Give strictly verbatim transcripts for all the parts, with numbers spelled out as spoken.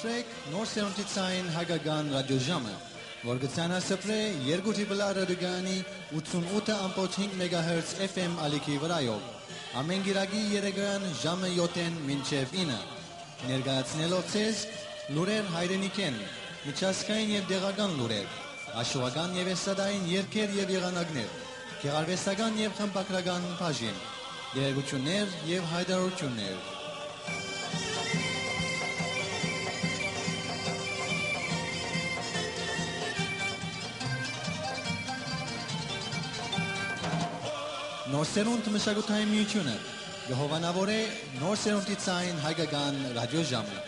Նոր սերունդի ցային հայկական ռադիոժամը, որ կը ցանասպրէ երկու դիպլա ռադիոկայանի ութսունութ ըմբոց հինգ մեգահերց F M ալիքի վրայով, ամէն կիրակի երեկոյեան ժամը յոթ մինչեւ ինը, ներկայացնելով ձեզ լուրեր հայրենիքէն, միջազգային եւ տեղական լուրեր, հաշուական եւ էսթատային երգեր եւ եղանակներ, գեղարուեստական եւ խմբագրական բաժին, տեղեկութիւններ եւ յայտարարութիւններ։ Նոր սերունդ մշակութային միութիւնը կը հովանաւորէ նոր սերունդի ցային հայկական ռադիոժամը։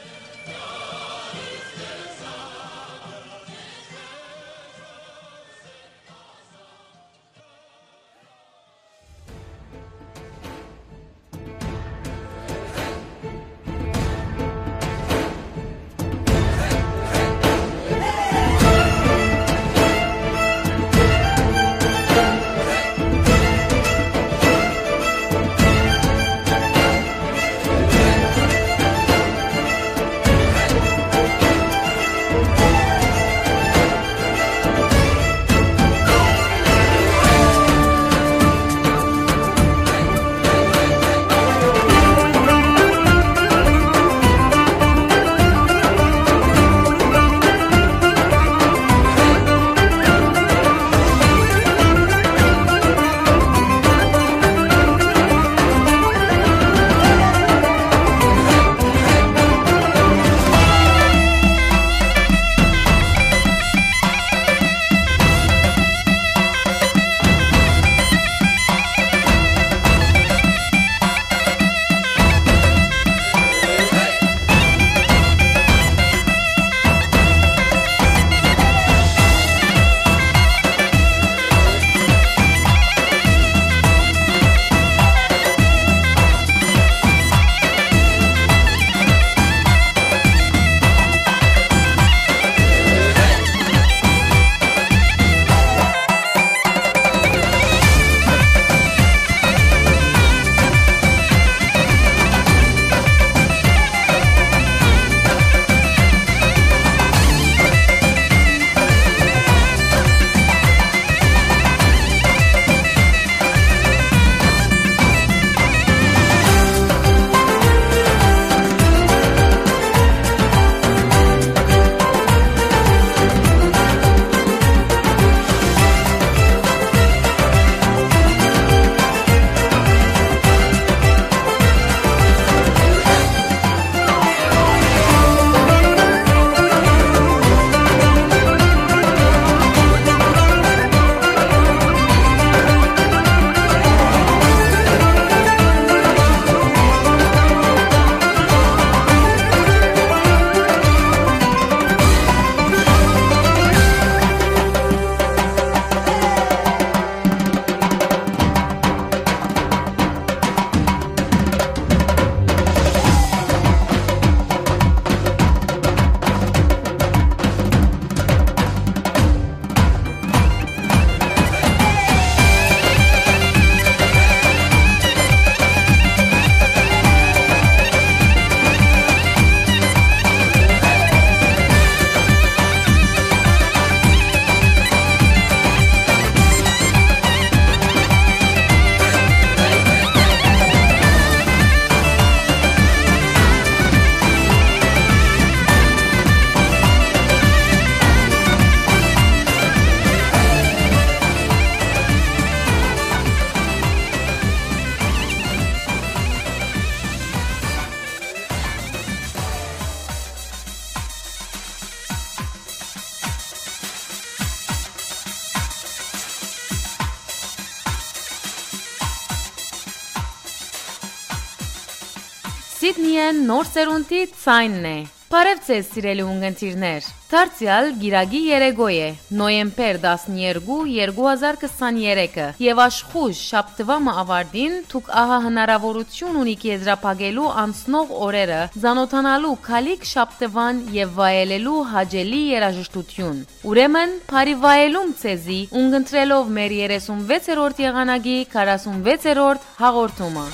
Սիդնիէն նոր սերունդի ցայնն է։ Բարեւ ձեզ, սիրելի ունգընտիրներ։ Դարձեալ կիրակի երեկոյ է, նոյեմբեր տասներկու, երկու հազար քսաներեքը, եւ աշխոյժ շաբթուայ մը աւարտին դուք ահա հնարաւորութիւն ունիք եզրափակելու անցնող օրերը, ծանօթանալու գալիք շաբթուան եւ վայելելու հաճելի երաժշտութիւն։ Ուրեմն, բարի վայելում ձեզի, ունգընտրելով մեր երեսունվեցերորդ եղանակի քառասունվեցերորդ հաղորդումը։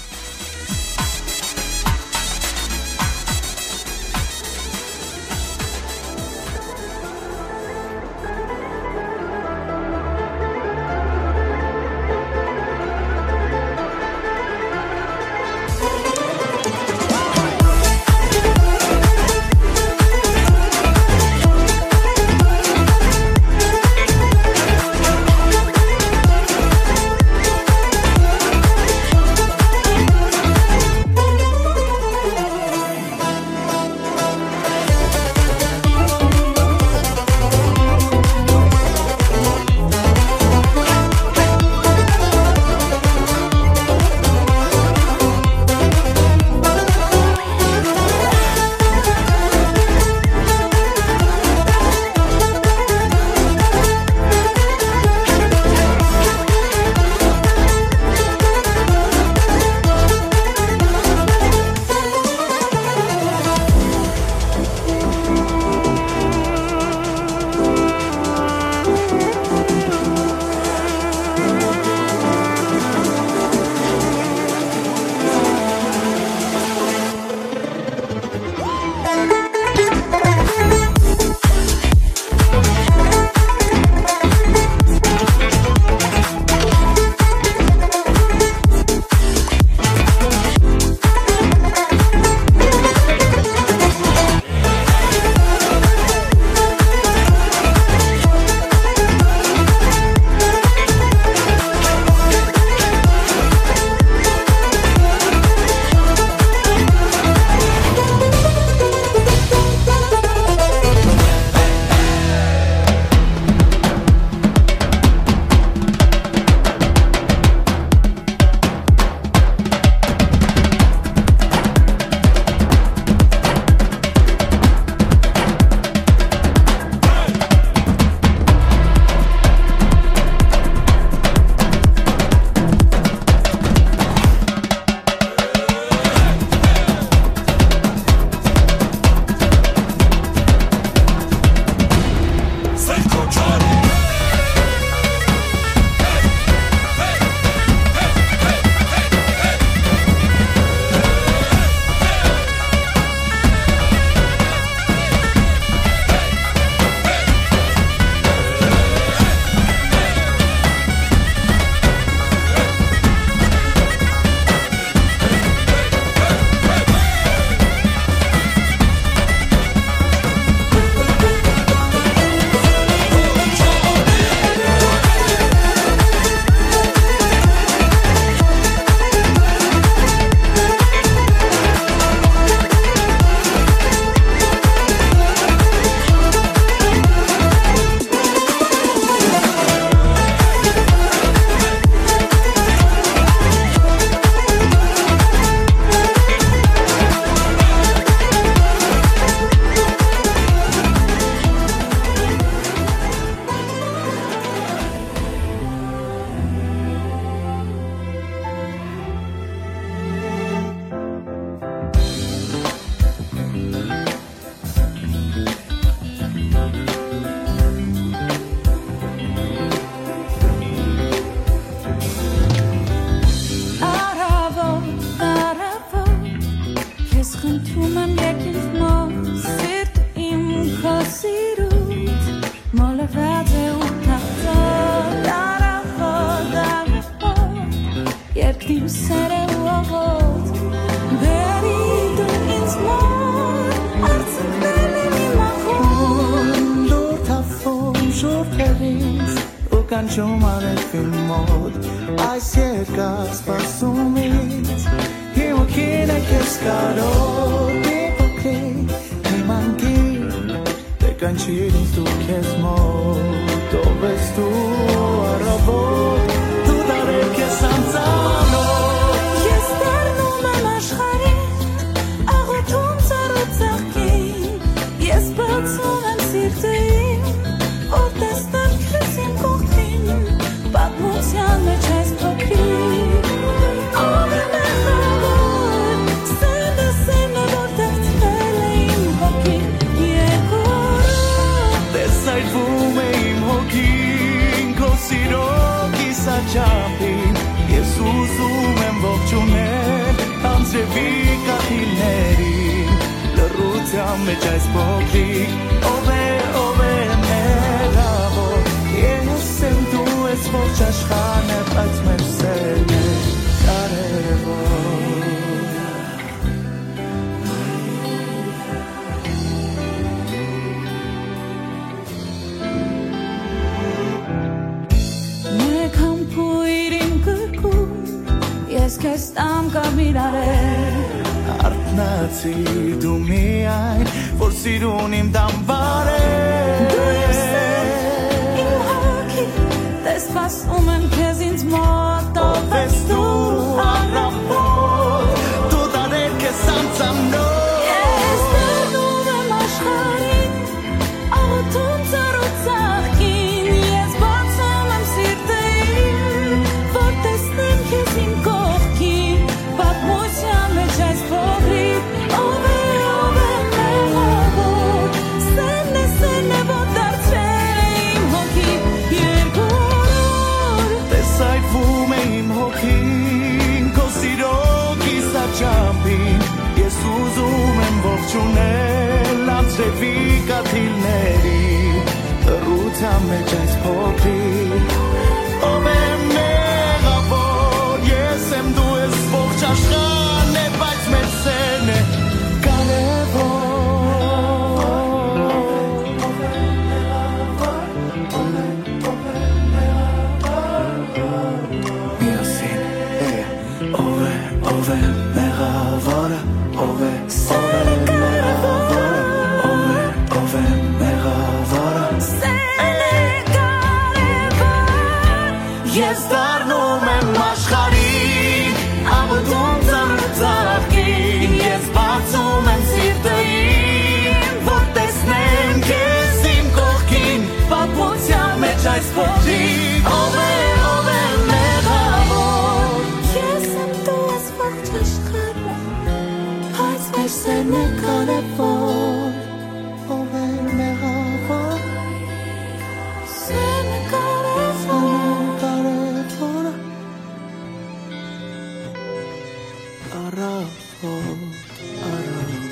Շուրթերիս ու կանչում արեւին մոտ, այս երկար սպասումից հիմքին է քեզ կարոտ, իմ փոքրիկ, իմ անգիր, դե կանչիր ինձ դու քեզ մոտ, ով ես դու առավոտ, դու դարեր քեզ անծանոթ։ Ես դառնում եմ աշխարհի աղոթում ծառու ծաղկին, ես բացում եմ սիրտը իմ, որ տեսնեմ քեզ իմ կողքին, պատմության մեջ այս փոքրիկ։ Ով է մեղավոր, սերն է, սերն է, որ դարձրել է իմ հոգին երկու օրով։ Տեսայլվում է իմ հոգին քո սիրո կիսաչափին, ես ուզում եմ ողջունել անձրևի կաթիլներին, լռության մեջ այս փոքրիկ, ով է, ով է մեղավոր, ես եմ, դու ես, ողջ աշխարհն է, բայց մեր սերն է կարևոր։ Մեկ համբոյր իմ կրկում, ես քեզ տամ կարմիր արեր։ Արթնացի դու միայն, որ սիրուն իմ դամբարեր։ Դու իմ սեր, իմ հոգի, տես սպասում եմ քեզ ինձ մոտ, ով ես դու առավոտ, դու դարեր քեզ անծանոթ։ Ես դառնում եմ աշխարհին, աղոթում ծառու ծաղկին, ես բացում եմ սիրտը իմ, որ տեսնեմ քեզ իմ կողքին, պատմության մեջ այս փոքրիկ, ով է, ով է մեղավոր, սերն է, սերն է, որ դարձրել է իմ հոգի երկու օր։ Տեսայլվում է իմ հոգին քո սիրո կիսաչափին, ես ուզում եմ ողջունել անձրևի կաթիլների լռության մեջ այս փոքրիկ, ով է մեղավոր, ես եմ, դու ես, ողջ աշխարհն է, բայց մեր սերն է կարևոր։ Միասին, hey, ով է, ով է մեղավորը, ով է, ով է մեղավորը, ով է, ով է մեղավորը։ Սերն է կարևոր, ես դառնում եմ աշխարհին, աղոթում ծառու ծաղկին, ես բացում եմ սիրտը իմ, որ տեսնեմ քեզ իմ կողքին, պատմության մեջ այս փոքրիկ, ով է, ով է մեղավոր։ Ես եմ, դու ես, ողջ աշխարհը, բայց մեր սերն է կարևոր։ Ով է մեղավոր, սերն է կարևոր, կարևոր։ Առավոտ, առավոտ։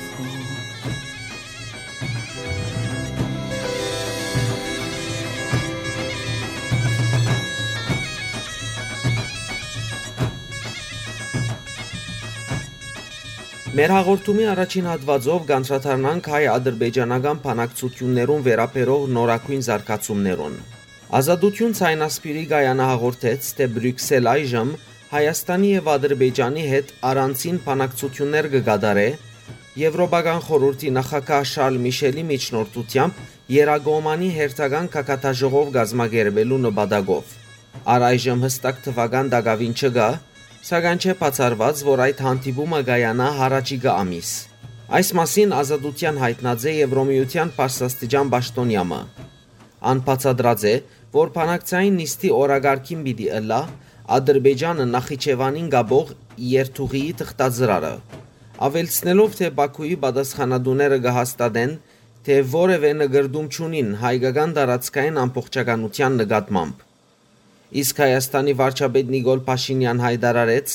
Մեր հաղորդումի առաջին հատուածով կանդրադառնանք հայ-ադրբեջանական բանակցություններուն վերաբերող նորագոյն զարգացումներուն։ Ազատություն ցայնասպիրի կայանը հաղորդեց, թէ Բրիւքսել այժմ Հայաստանի եւ Ադրբեջանի հետ առանձին բանակցություններ կը կատարէ, Եվրոպական խորհուրդի նախագահ Շարլ Միշելի միջնորդությամբ Եռակողմանի հերթական գագաթաժողով կազմակերպելու նպատակով։ Առայժմ յստակ թուական տակաւին չկայ, սակայն չէ բացառուած, որ այդ հանդիպումը կայանայ յառաջիկայ ամիս։ Այս մասին Ազատութեան յայտնած է Եվրոմիութեան բարձրաստիճան պաշտօնեայ մը։ Ան բացատրած է, որ բանակցային նիստի օրակարգին պիտի ըլլայ Ադրբեջանը Նախիջեւանին կապող երթուղիի թղթածրարը, աւելցնելով, թէ Պաքուի պատասխանատուները կը հաստատեն, թէ որեւէ նկրտում չունին հայկական տարածքային ամբողջականութեան նկատմամբ։ Իսկ Հայաստանի վարչապետ Նիկոլ Փաշինեան յայտարարեց,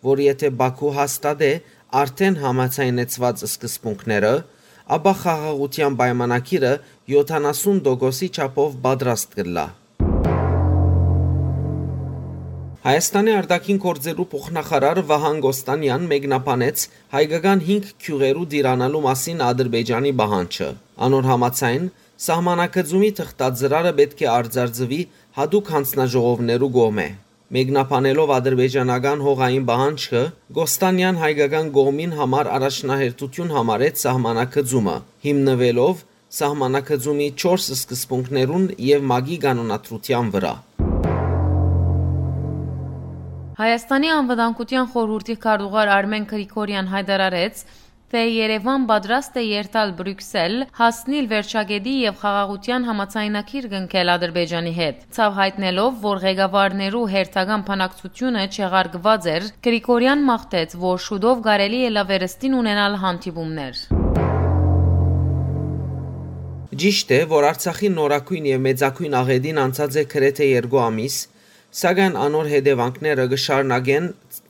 որ եթէ Պաքու հաստատէ արդէն համաձայնեցուած սկզբունքները, ապա խաղաղութեան պայմանագիրը յոթանասուն տոկոսի չափով պատրաստ կ'ըլլայ։ Հայաստանի արտաքին գործերու փոխնախարար Վահան Կոստանեան մեկնաբանեց հայկական հինգ գիւղերու տիրանալու մասին Ադրբեջանի պահանջը։ Անոր համաձայն, Սահմանակցումի թղթածրարը պէտք է արծարծուի յատուկ յանձնաժողովներու կողմէ։ Մեկնաբանելով ադրբեջանական հողային պահանջքը, Կոստանեան հայկական կողմին համար առաջնահերթութիւն համարեց սահմանակցումը, հիմնուելով սահմանակցումի չորս սկզբունքներուն եւ ՄԱԿ-ի կանոնադրութեան վրայ։ Հայաստանի անվտանգութեան խորհուրդի քարտուղար Արմեն Գրիգորեան յայտարարեց, թէ Երեւան պատրաստ է երթալ Բրիւքսել, հասնիլ վերջակետի եւ խաղաղութեան համաձայնագիր կնքել Ադրբեջանի հետ։ Ցաւ յայտնելով, որ ղեկավարներու հերթական բանակցությունը չեղարկուած էր, Գրիգորեան մաղթեց, որ շուտով կարելի ըլլայ վերստին ունենալ հանդիպումներ։ Ճիշդ է, որ Արցախի նորագոյն եւ մեծագոյն աղէտին անցած է գրեթէ երկու ամիս, սակայն անոր հետեւանքները կը շարունակեն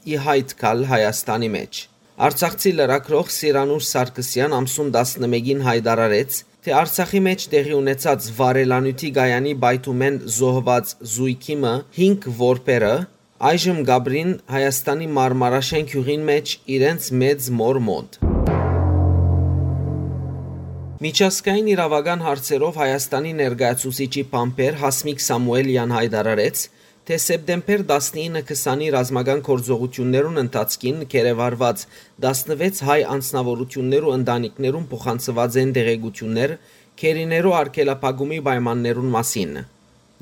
ի յայտ գալ Հայաստանի մէջ։ Արցախցի լրագրող Սիրանուշ Սարգսեան ամսուն տասնմէկին յայտարարեց, թէ Արցախի մէջ տեղի ունեցած վառելանիւթի կայանի պայթումէն զոհուած զոյգի մը հինգ որբերը այժմ կ'ապրին Հայաստանի Մարմարաշեն գիւղին մէջ իրենց մեծ մօր մօտ։ Միջազգային իրաւական հարցերով Հայաստանի ներկայացուցիչի բանբեր Հասմիկ Սամուէլեան յայտարարեց, թէ սեպտեմբեր տասնինը քսանի ռազմական գործողութիւններուն ընթացքին գերեվարուած տասնվեց հայ անձնաւորութիւններու ընտանիքներուն փոխանցուած են տեղեկութիւններ գերիներու արգելափակումի պայմաններուն մասին։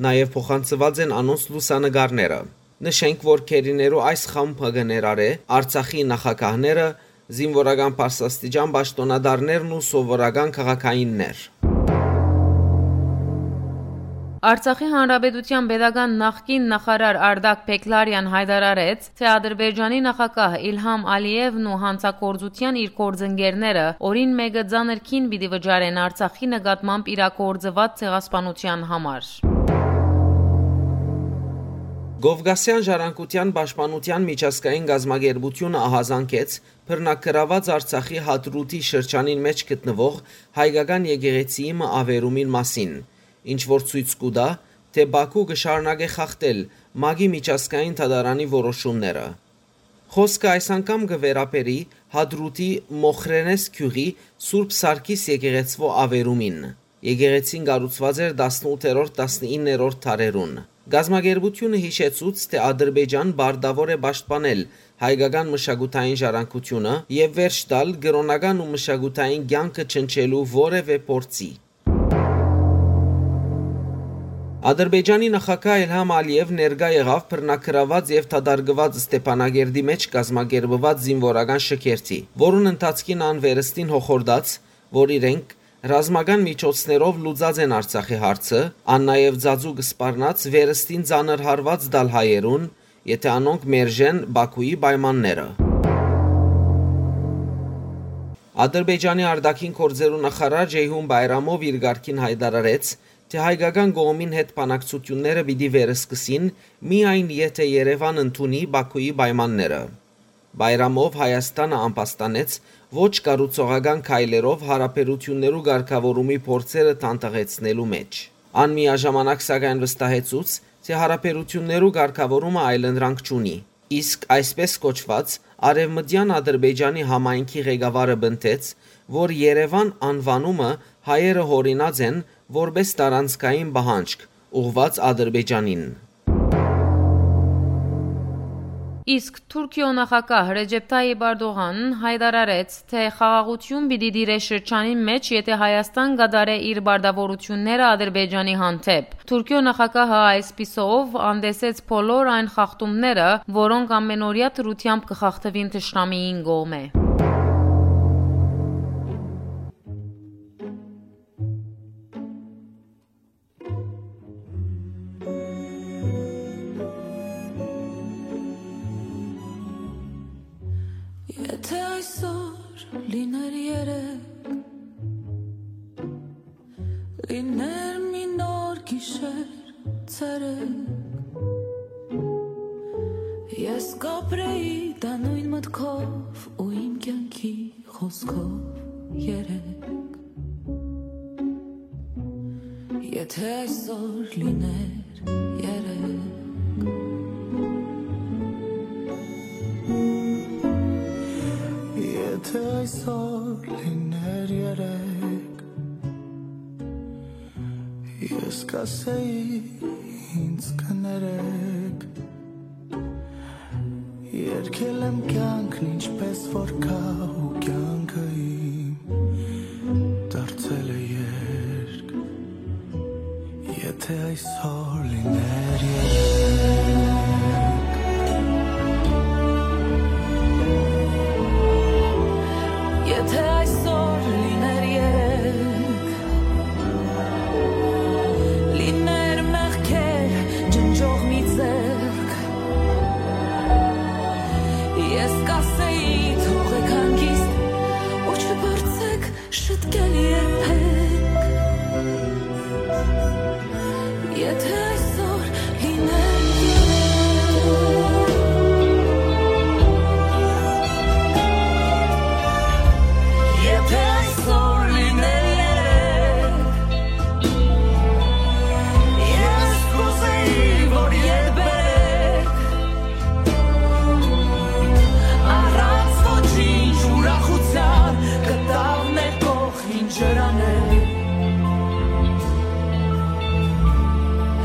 Նաեւ փոխանցուած են անոնց լուսանկարները։ Նշենք, որ գերիներու այս խումբը կը ներառէ Արցախի նախագահները, զինուորական բարձրաստիճան պաշտօնատարներն ու սովորական քաղաքայիններ։ Արցախի Հանրապետութեան պետական նախկին նախարար Արտակ Բեգլարեան յայտարարեց, թէ Ադրբեջանի նախագահ Իլհամ Ալիևն ու յանցագործութեան իր գործընկերները օրին մէկը ծանր քին պիտի վճարեն Արցախի նկատմամբ իրագործուած ցեղասպանութեան համար։ Կովկասեան ժառանգութեան պաշտպանութեան միջազգային կազմակերպութիւնը ահազանգեց բռնագրաւած Արցախի Հադրութի շրջանին մէջ գտնուող հայկական եկեղեցիի մը ավերումին մասին, ինչ որ ցոյց կու տայ, թէ Բաքու կը շարունակէ խախտել ՄԱԿ-ի միջազգային դատարանի որոշումները։ Խօսքը այս անգամ կը վերաբերի Հադրութի Մոխրենես գիւղի Սուրբ Սարգիս եկեղեցւոյ ավերումին։ Եկեղեցին կառուցուած էր տասնութերորդ, տասնիններորդ դարերուն։ Կազմակերպութիւնը յիշեցուց, թէ Ադրբեջան պարտաւոր է պաշտպանել հայկական մշակութային ժառանգութիւնը եւ վերջ տալ կրօնական ու մշակութային կեանքը ջնջելու որեւէ փորձի։ Ադրբեջանի նախագահ Իլհամ Ալիեւ ներկայ եղաւ բռնագրաւած եւ դատարկուած Ստեփանագերդի մէջ կազմակերպուած զինուորական շքերթի, որուն ընթացքին ան վերստին հոխորտաց, որ իրենք ռազմական միջոցներով լուծած են Արցախի հարցը, ան նաեւ ծածուկ սպառնաց վերստին ծանր հարուած տալ հայերուն, եթէ անոնք մերժեն Բաքուի պայմանները։ Ադրբեջանի արտաքին գործերու նախարար Ջեյհուն Բայրամով իր կարգին յայտարարեց, թէ հայկական կողմին հետ բանակցութիւնները պիտի վերսկսին միայն եթէ Երեւան ընդունի Բաքուի պայմանները։ Բայրամով Հայաստանը ամբաստանեց ոչ կառուցողական քայլերով յարաբերութիւններու կարգաւորումի փորձերը թանթաղեցնելու մէջ։ Ան միաժամանակ սակայն վստահեցուց, թէ յարաբերութիւններու կարգաւորումը այլընտրանք չունի, իսկ այսպես կոչուած Արեւմտեան Ադրբեջանի համայնքի ղեկավարը պնդեց, որ Երեւան անուանումը հայերը յօրինած են որպէս տարանցքային պահանջք՝ ուղղուած Ադրբեջանին։ Իսկ Թուրքիոյ նախագահ Ռեջեփ Թայիփ Էրդողան յայտարարեց, թէ խաղաղութիւն պիտի տիրէ շրջանին մէջ, եթէ Հայաստան կատարէ իր պարտաւորութիւնները Ադրբեջանի հանդէպ։ Թուրքիոյ նախագահը այսպիսով անտեսեց բոլոր այն խախտումները, որոնք ամենօրեայ դրությամբ կը խախտուին թշնամիին կողմէ։ Եթե այսօր լիներ երեկ, լիներ մի նոր գիշեր, ցերեկ, ես կապրեի դա նոյն մտքով ու իմ կյանքի խօսքով երեկ։ Եթե այսօր լիներ երեկ, եթե այսօր լիներ երեկ, Կասեի ինձ կներեք, երկել եմ կյանքն ինչպես որ կա ու կյանքը իմ դարձել է երգ, եթե այսօր լիներ երեկ։ Եթե այսօր լիներ երեկ, լիներ մեղքեր ջնջող մի ձեռք, ես կասեի՝ թողեք հանգիստ ու չփորձեք շտկել երբեք։ Եթե այսօր լիներ երեկ, եթե այսօր լիներ երեկ, ես կուզեի, որ երբեք առանց ոչինչ ուրախության կտավ մեր կողքին ջրաներ։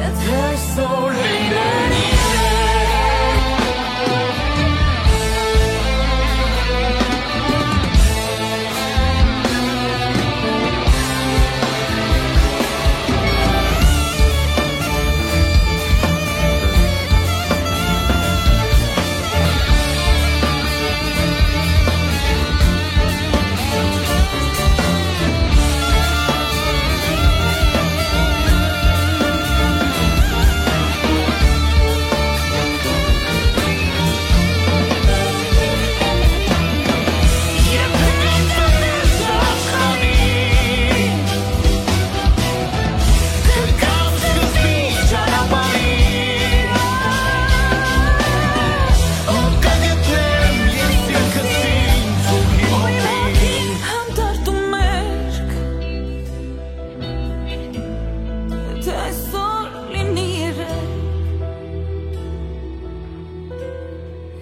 Եթե այսօր լիներ Հանդարտում մերկ, եթե այսօր լինի երեկ,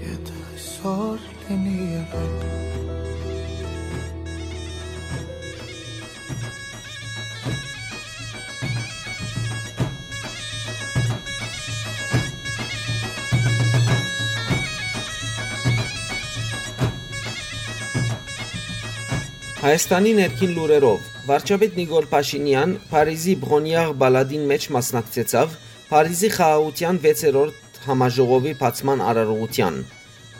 եթե այսօր լինի երեկ։ Հայաստանի ներքին լուրերով, վարչապետ Նիկոլ Փաշինեան Փարիզի Բրոնիաղ պալատին մէջ մասնակցեցաւ Փարիզի խաղաղութեան վեցերորդ համաժողովի բացման արարողութեան,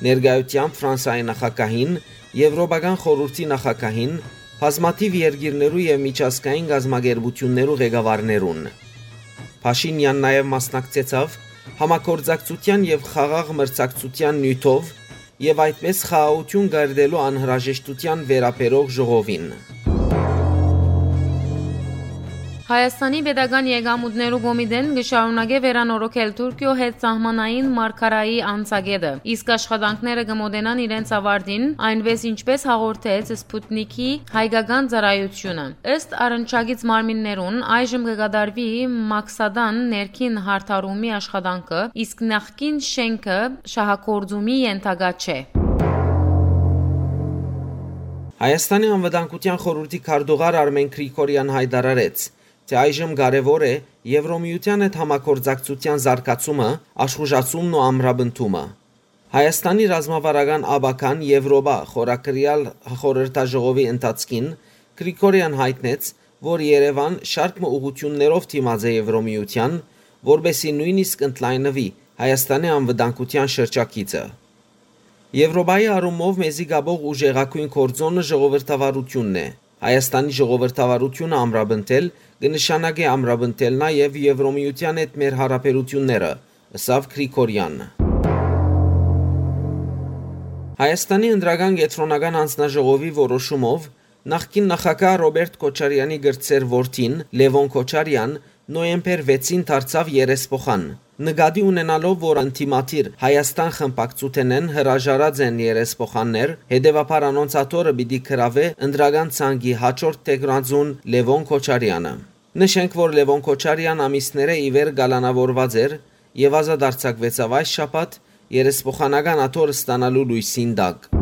ներկայությամբ Ֆրանսայի նախագահին, Եվրոպական խորհուրդի նախագահին, բազմաթիւ երկիրներու եւ միջազգային կազմակերպութիւններու ղեկավարներուն։ Փաշինեան նաեւ մասնակցեցաւ համագործակցութեան եւ խաղաղ մրցակցութեան նիւթով եւ այդպէս խաղաղութիւն կերտելու անհրաժեշտութեան վերաբերող ժողովին։ Հայաստանի Պետական Եկամուտներու Կոմիտեն կը շարունակէ վերանորոգել Թուրքիոյ հետ սահմանային մարգարայի անցակէտը, իսկ աշխատանքները կը մօտենան իրենց ավարտին, այնպէս ինչպէս հաղորդեց Սպուտնիքի հայկական ծառայութիւնը։ Ըստ առնչակից մարմիններուն, այժմ կը կատարուի Մաքսադան ներքին յարդարումի աշխատանքը, իսկ նախկին շենքը շահագործումի ենթակայ չէ։ Հայաստանի Անվտանգության խորհուրդի քարտուղար Արմեն Գրիգորեան յայտարարեց, թէ այժմ կարեւոր է Եվրոմիութեան հետ համագործակցութեան զարգացումը, աշխուժացումն ու ամրապնդումը։ Հայաստանի ռազմավարական ապագան Եվրոպա խորագրեալ խորհրդաժողովի ընթացքին Գրիգորեան յայտնեց, որ Երեւան շարք մը ուղղութիւններով դիմած է Եվրոմիութեան, որպէսզի նոյնիսկ ընդլայնուի Հայաստանի անվտանգութեան շրջագիծը։ Եվրոպայի առումով մեզի կապող ուժեղագոյն գործոնը ժողովրդավարութիւնն է։ Հայաստանի ժողովրդավարութիւնը ամրապնդել կը նշանակէ ամրապնդել նաեւ Եվրոմիութեան հետ մեր յարաբերութիւնները, ըսաւ Գրիգորեան։ Հայաստանի Ընտրական Կեդրոնական Հանձնաժողովի որոշումով նախկին նախագահ Ռոբերտ Քոչարեանի կրտսեր որդին՝ Լեւոն Քոչարեան, նոյեմբեր վեցին դարձաւ երեսփոխան։ Նկատի ունենալով, որ ընդդիմադիր Հայաստան խմբակցութենէն հրաժարած են երեսփոխաններ, հետեւաբար անոնց աթոռը պիտի գրաւէ ընտրական ցանկի յաջորդ թեկնածուն Լեւոն Քոչարեանը։ Նշենք, որ Լեւոն Քոչարեան ամիսներէ ի վեր կալանաւորուած էր եւ ազատ արձակուեցաւ այս շաբաթ՝ երեսփոխանական աթոռ ստանալու լոյսին տակ։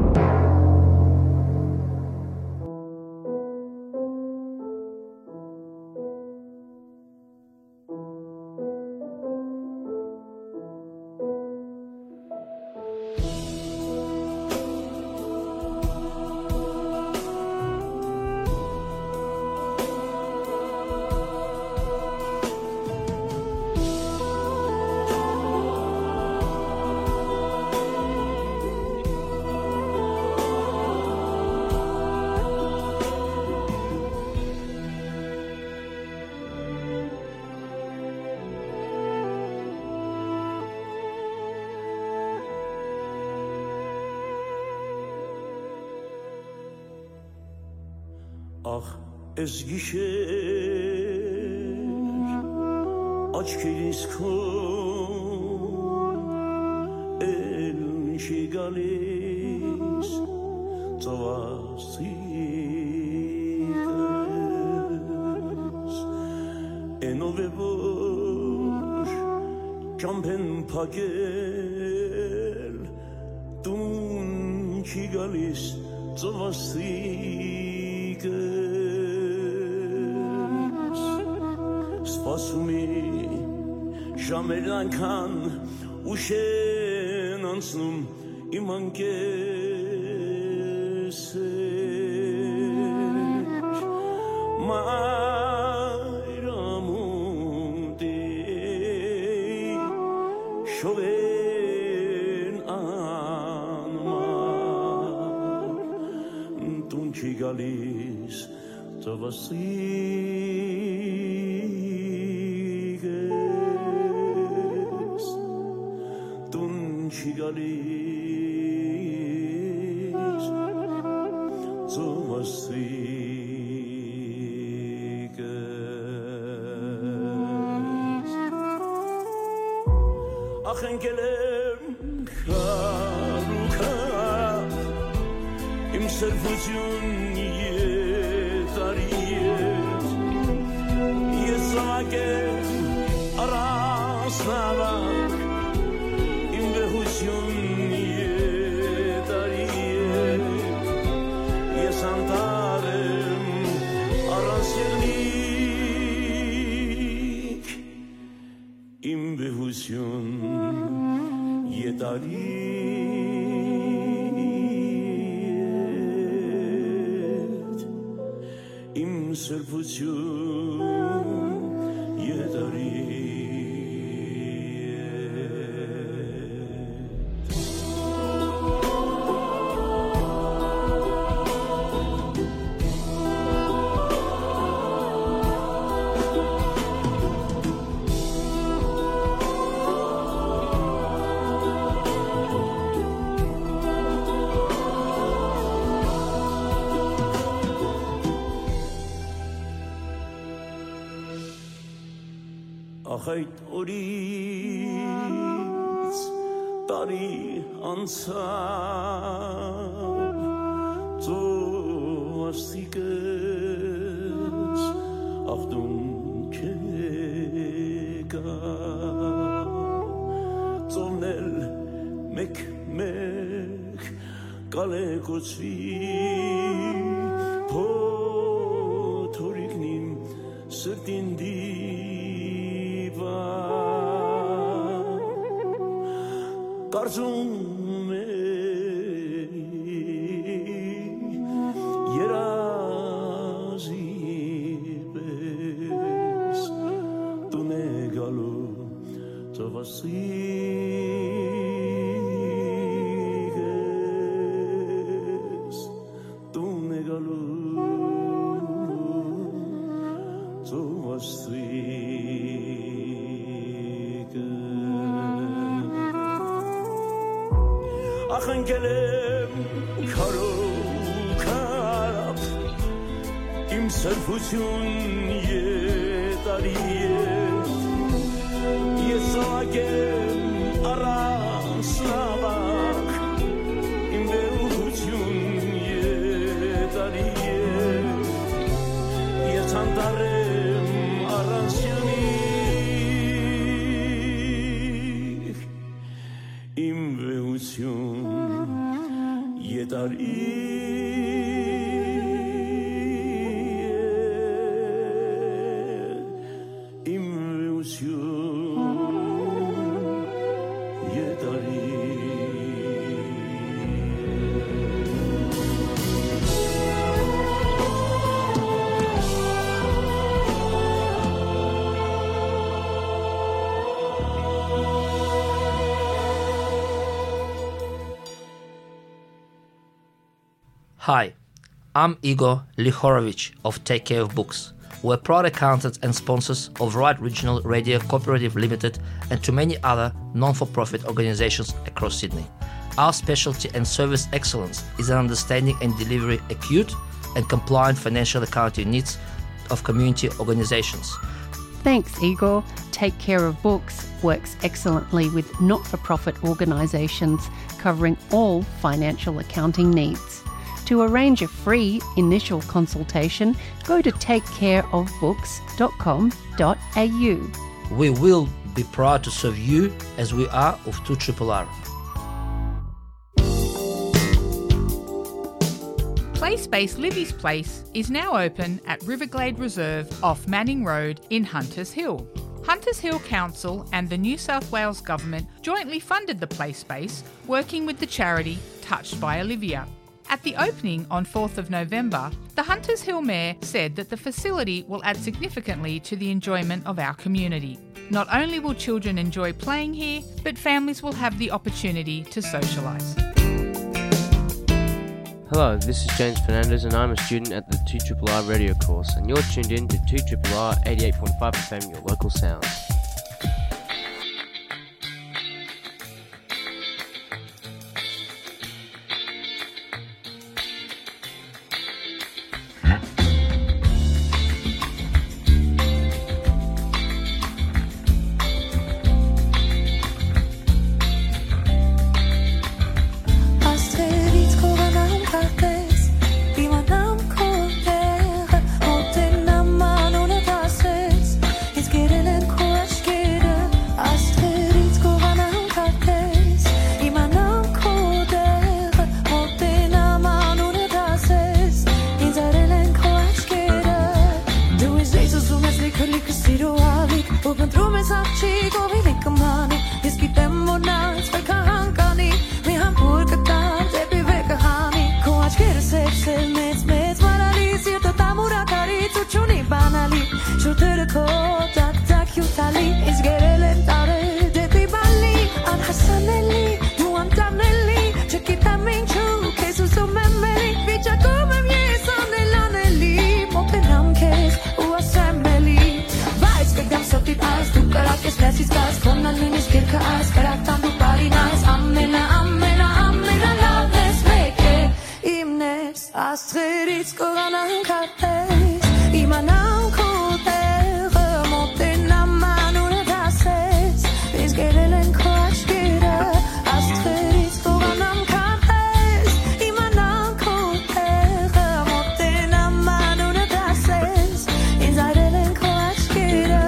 Ախ, էս գիշեր աչքերիս քո էլ չի գալիս ծովասիկս, էնով է որ ճամբեն փակել տուն չի գալիս ծովասիկս։ Սպասումի ժամերն այնքան ուշ են անցնում իմ անկեսեր, մայրամուտի շողերն անմար տուն չի գալիս ծովասիկս, տուն չի գալիս ծովասիկս։ Ախ, ընկել եմ քարուքա, իմ սրբություն ետ արի ետ, ես զաւակ եմ առանց նավակ, իմ վեհություն ետ արի ետ, ես անտառ եմ առանց եղնիկ, իմ վեհություն ետ արի ետ, իմ սրբություն ետ արի ետ։ Ախ, այդ օրից տարի անցաւ, ծովասիկս ախտուն չեկա, ծովն էլ մեկ-մեկ կալեկուցուի, փոթորիկն իմ սրտին դիպա, կարծում է երազի պես տուն է գալու ծովասիկս, տուն է գալու ծովասիկս։ Ախ, ընկել եմ քարոքապ, իմ սրբություն ետ արի ետ, ես զաւակ եմ առանց նաւակ, իմ վեհություն ետ արի ետ, ես անտառ եմ առանց եղնիկ, իմ վեհություն ետ արի ետ, իմ վեհություն ետ արի ետ։ Hi, I'm Igor Lihorovich of Take Care of Books. We're proud accountants and sponsors of Right Regional Radio Cooperative Limited and to many other non-for-profit organizations across Sydney. Our specialty and service excellence is an understanding and delivery acute, and compliant financial accounting needs of community organizations. Thanks, Igor. Take Care of Books works excellently with not for profit organisations, covering all financial accounting needs. To arrange a free initial consultation, go to take care of books dot com dot a u. We will be proud to serve you as we are of two triple R. Play Space Livy's Place is now open at Riverglade Reserve off Manning Road in Hunters Hill. Hunters Hill Council and the New South Wales Government jointly funded the play space, working with the charity Touched by Olivia. At the opening on fourth of November, the Hunters Hill Mayor said that the facility will add significantly to the enjoyment of our community. Not only will children enjoy playing here, but families will have the opportunity to socialise. Hello, this is James Fernandez, and I'm a student at the two triple R radio course, and you're tuned in to two triple R eighty-eight point five F M, your local sound. Աստղերից կողանամ քարտեզ, իմանամ քո տեղը, մոտենամ անունդ ասես, ինձ կերել են քո աչքերը, աստղերից կողանամ քարտեզ, իմանամ քո տեղը, մոտենամ անունդ ասես, ինձ արել են քո աչքերը, դու ինձ լիք ուզում ես, լիքը, լիքը սիրո ալիք, ու փնտրում ես աղջիկ, ով իլի կմանի, ես գիտեմ, որ նա ինձ վեր կհանգանի, մի համբույր կտամ դեպի վեր կհանի, քո աչքերը սև, սև, մեծ, մեծ, մարալի, սիրտը տամուր ակարից ու չունի բանալի, շուրթերը քո տակ, տակ հիւթալի, ինձ գերել են տարեր դեպի բալի, անհասանելի, դու անտանելի, չգիտեմ ինչու, քեզ ուզում եմ էլի, վիճակում եմ ես անել անելի, մոտենամ քեզ ու ասեմ էլի, բայց կգամ սրտիդ այս, դու կրակ ես, ներսից կաս, քոննան նույնիսկ երկը այս, կրակ տան դու բարին այս, ամենա, ամենա, ամենալավն ես, մեկ է, իմն ես, աստղերից կողանամ քարտեզ, իմանամ քո տեղը, մոտենամ անունդ ասես, ինձ գերել են քո աչքերը, աստղերից կողանամ քարտեզ, իմանամ քո տեղը, մոտենամ անունդ ասես, ինձ արել են քո աչքերը։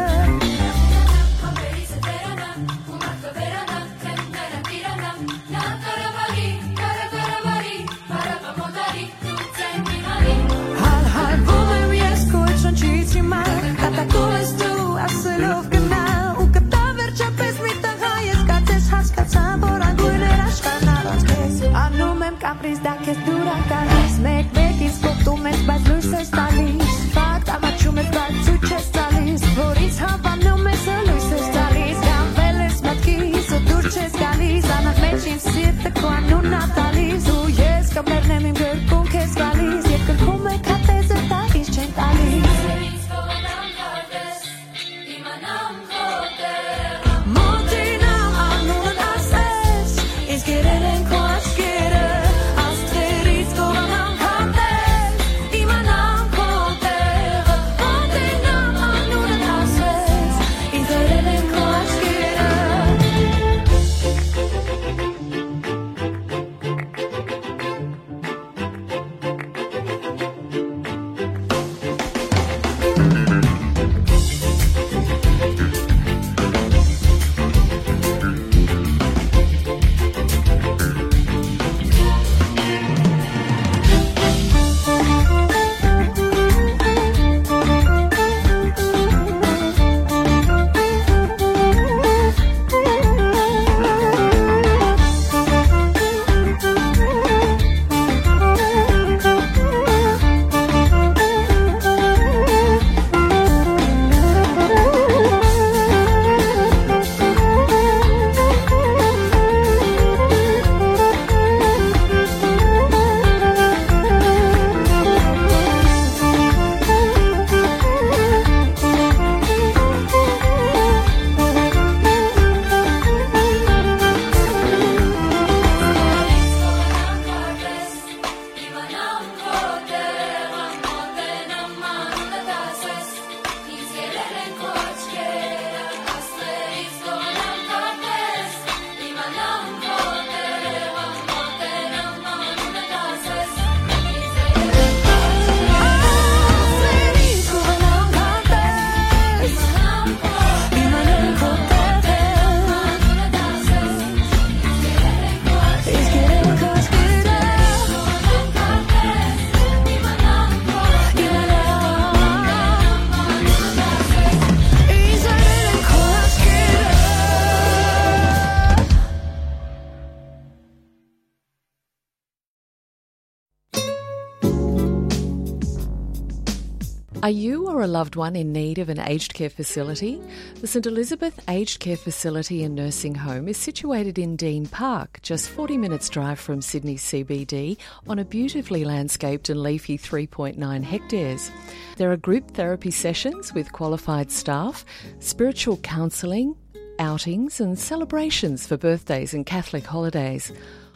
Are you or a loved one in need of an aged care facility? The St Elizabeth Aged Care Facility and Nursing Home is situated in Dean Park, just forty minutes' drive from Sydney C B D, on a beautifully landscaped and leafy three point nine hectares. There are group therapy sessions with qualified staff, spiritual counselling, outings and celebrations for birthdays and Catholic holidays.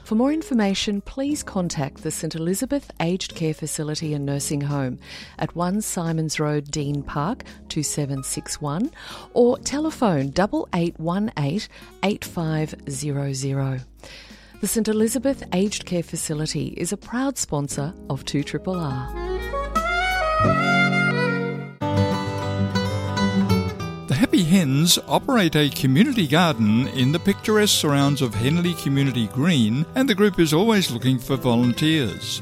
For more information, please contact the St Elizabeth Aged Care Facility and Nursing Home at one Symonds Road, Dean Park, two seven six one, or telephone double eight one eight eight five zero zero. The St Elizabeth Aged Care Facility is a proud sponsor of two triple R. The Happy Hens operate a community garden in the picturesque surrounds of Henley Community Green, and the group is always looking for volunteers.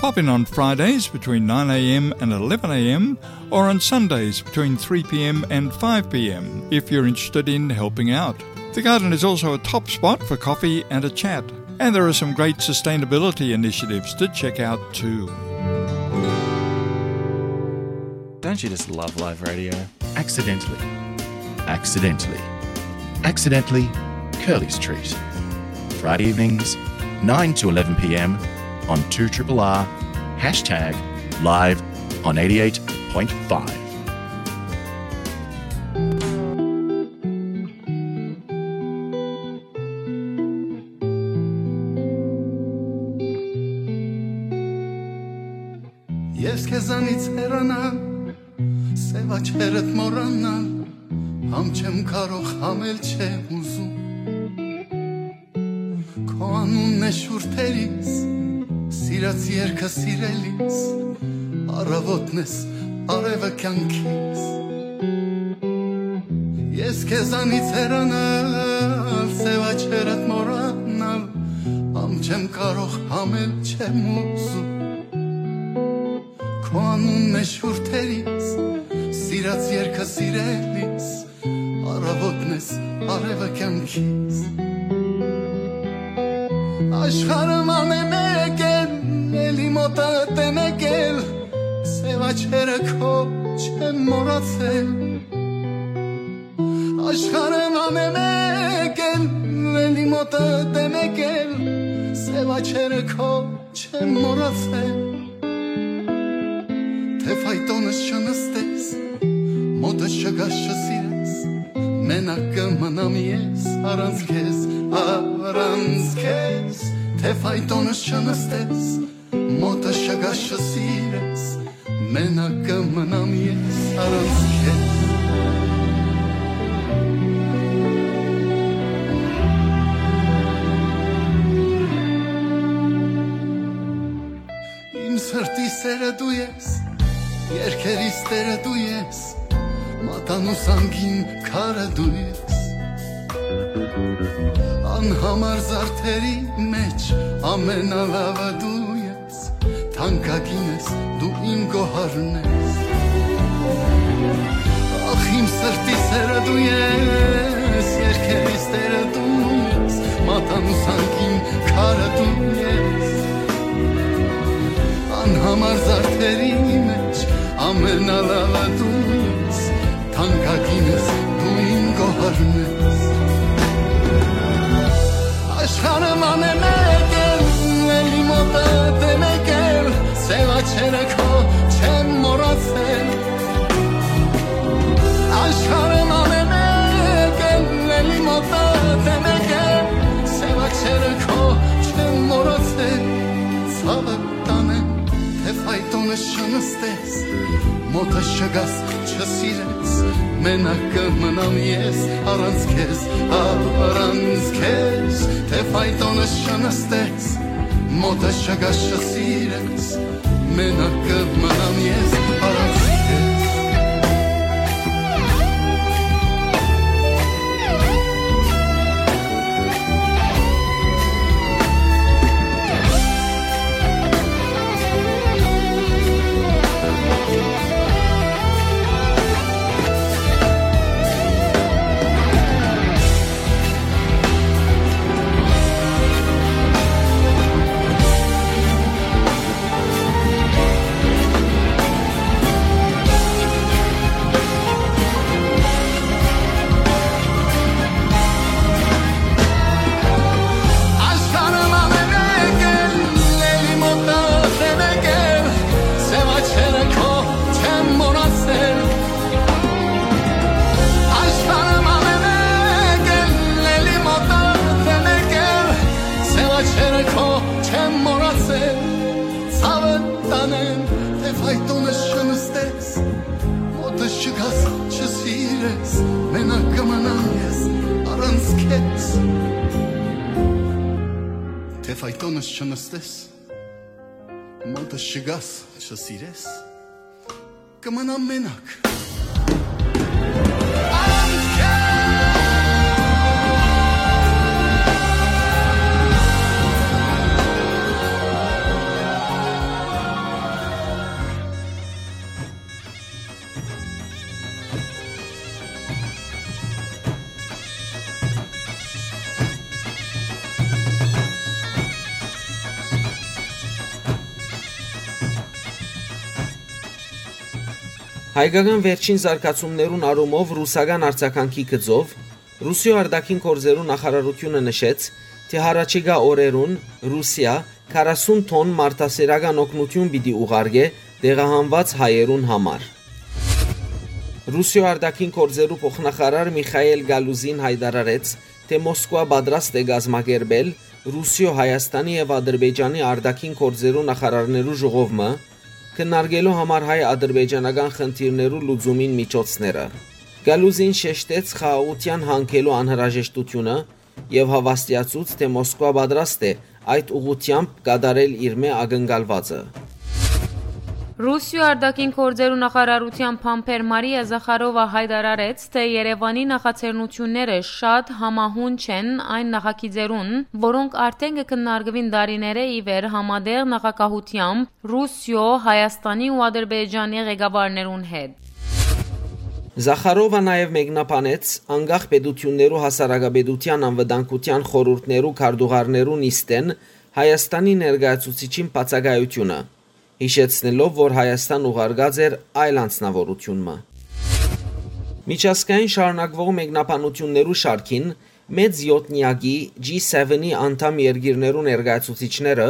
Pop in on Fridays between nine a.m. and eleven a.m., or on Sundays between three p.m. and five p.m. if you're interested in helping out. The garden is also a top spot for coffee and a chat, and there are some great sustainability initiatives to check out too. Don't you just love live radio? Accidentally. Accidentally. Accidentally, Curly's Treat. Friday evenings, nine to eleven p.m. on two triple R, hashtag live on eighty-eight point five. Ես քեզանից հեռանալ, սեւ աչքերդ մոռանալ, համ չեմ կարող, համ էլ չեմ ուզում։ Քո անունն է շուրթերիս, սիրած երկը սիրելիս, առավոտն ես, արևը կյանքիս։ Ես քեզանից հեռանալ, սեւ աչքերդ մոռանալ, համ չեմ կարող, համ էլ չեմ ուզում։ Քո անունն է շուրթերիս, սիրած երկը սիրելիս, առավոտն ես, արևը կյանքիս։ Աշխարհը ման է մեկ էլ, էլի մոտդ է մեկ էլ, սեւ աչքերը քո չեմ մոռացել։ Աշխարհը ման է մեկ էլ, էլի մոտդ է մեկ էլ, սեւ աչքերը քո չեմ մոռացել։ Թէ ֆայտոնս չնստես, մոտս չգաս, չսիրես, մենակ կը մնամ ես առանց քեզ, առանց քեզ։ Թէ ֆայտոնս չնստես, մոտս չգաս, չսիրես, մենակ կը մնամ ես առանց քեզ։ Իմ սրտի սերը դու ես, երկերիս տերը դու ես, մատանու սանքին քարը դու ես։ Անհամար զարդերի մեջ ամենալավը դու ես, թանկագին ես, դու իմ գոհարն ես։ Ախ, իմ սրտի սերը դու ես, երկերիս տերը դու ես, մատանու սանքին քարը դու ես։ Անհամար զարդերի մեջ ամենալավը դու ես, թանկագին ես, դու իմ գոհարն ես։ Աշխարհը ման է մեկ էլ, էլի մոտդ է մեկ էլ, սեւ աչքերը քո չեմ մոռացել։ Աշխարհը ման է մեկ էլ, էլի մոտդ է մեկ էլ, սեւ աչքերը քո չեմ մոռացել։ Ցավը տանեմ, թէ ֆայտոնս չնստես, մոտս չգաս, չսիրես, մենակ կը մնամ ես առանց քեզ, առանց քեզ, թէ ֆայտոնս չնստես, մոտս չգաս, չսիրես, մենակ կը մնամ ես առանց քեզ։ Եվ այդոնս չնստես, մոտս չգաս, չսիրես, կմնամ մենակ։ Հայկական վերջին զարգացումներուն առումով ռուսական արձագանքի գծով, Ռուսիոյ արտաքին գործերու նախարարութիւնը նշեց, թէ յառաջիկայ օրերուն Ռուսիա քառասուն թոն մարդասիրական օգնութիւն պիտի ուղարկէ տեղահանուած հայերուն համար։ Ռուսիոյ արտաքին գործերու փոխնախարար Միխայել Գալուզին յայտարարեց, թէ Մոսկուա պատրաստ է կազմակերպել Ռուսիոյ, Հայաստանի եւ Ադրբեջանի արտաքին գործերու նախարարներու ժողով մը, քննարկելու համար հայ-ադրբեջանական խնդիրներու լուծումին միջոցները։ Գալուզին շեշտեց խաղաղութեան յանգելու անհրաժեշտութիւնը եւ հաւաստիացուց, թէ Մոսկուա պատրաստ է այդ ուղղութեամբ կատարել իրմէ ակնկալուածը։ Ռուսիոյ արտաքին գործերու նախարարութեան բանբեր Մարիա Զախարովա յայտարարեց, թէ Երեւանի նախաձեռնութիւնները շատ համահունչ են այն նախագիծերուն, որոնք արդեն կը քննարկուին տարիներէ ի վեր համատեղ նախագահութեամբ Ռուսիոյ, Հայաստանի ու Ադրբեջանի ղեկավարներուն հետ։ Զախարովա նաեւ մեկնաբանեց անկախ պետութիւններու հասարակապետութեան անվտանգութեան խորհուրդներու քարտուղարներու նիստէն Հայաստանի ներկայացուցիչին բացակայութիւնը, յիշեցնելով, որ Հայաստան ուղարկած էր այլ անձնաւորութիւն մը։ Միջազգային շարունակուող մեկնաբանութիւններու շարքին, մեծ յոթնեակի G seven-ի անդամ երկիրներու ներկայացուցիչները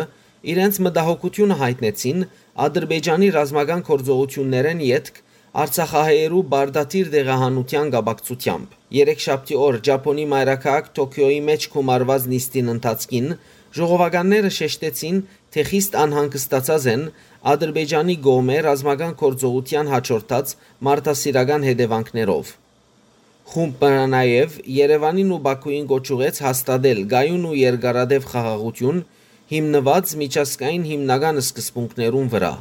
իրենց մտահոգութիւնը յայտնեցին Ադրբեջանի ռազմական գործողութիւններէն ետք արցախահայերու պարտադիր տեղահանութեան կապակցութեամբ։ Երեքշաբթի օր Ճապոնի մայրաքաղաք Թոքիոյի մէջ գումարուած նիստին ընթացքին ժողովականները շեշտեցին, թէ խիստ անհանգստացած են Ադրբեջանի կողմէ ռազմական գործողութեան յաջորդած մարդասիրական հետեւանքներով։ Խումբը նաեւ Երեւանին ու Բաքուին կոչ ուղղեց հաստատել կայուն ու երկարատեւ խաղաղութիւն, հիմնուած միջազգային հիմնական սկզբունքներուն վրայ։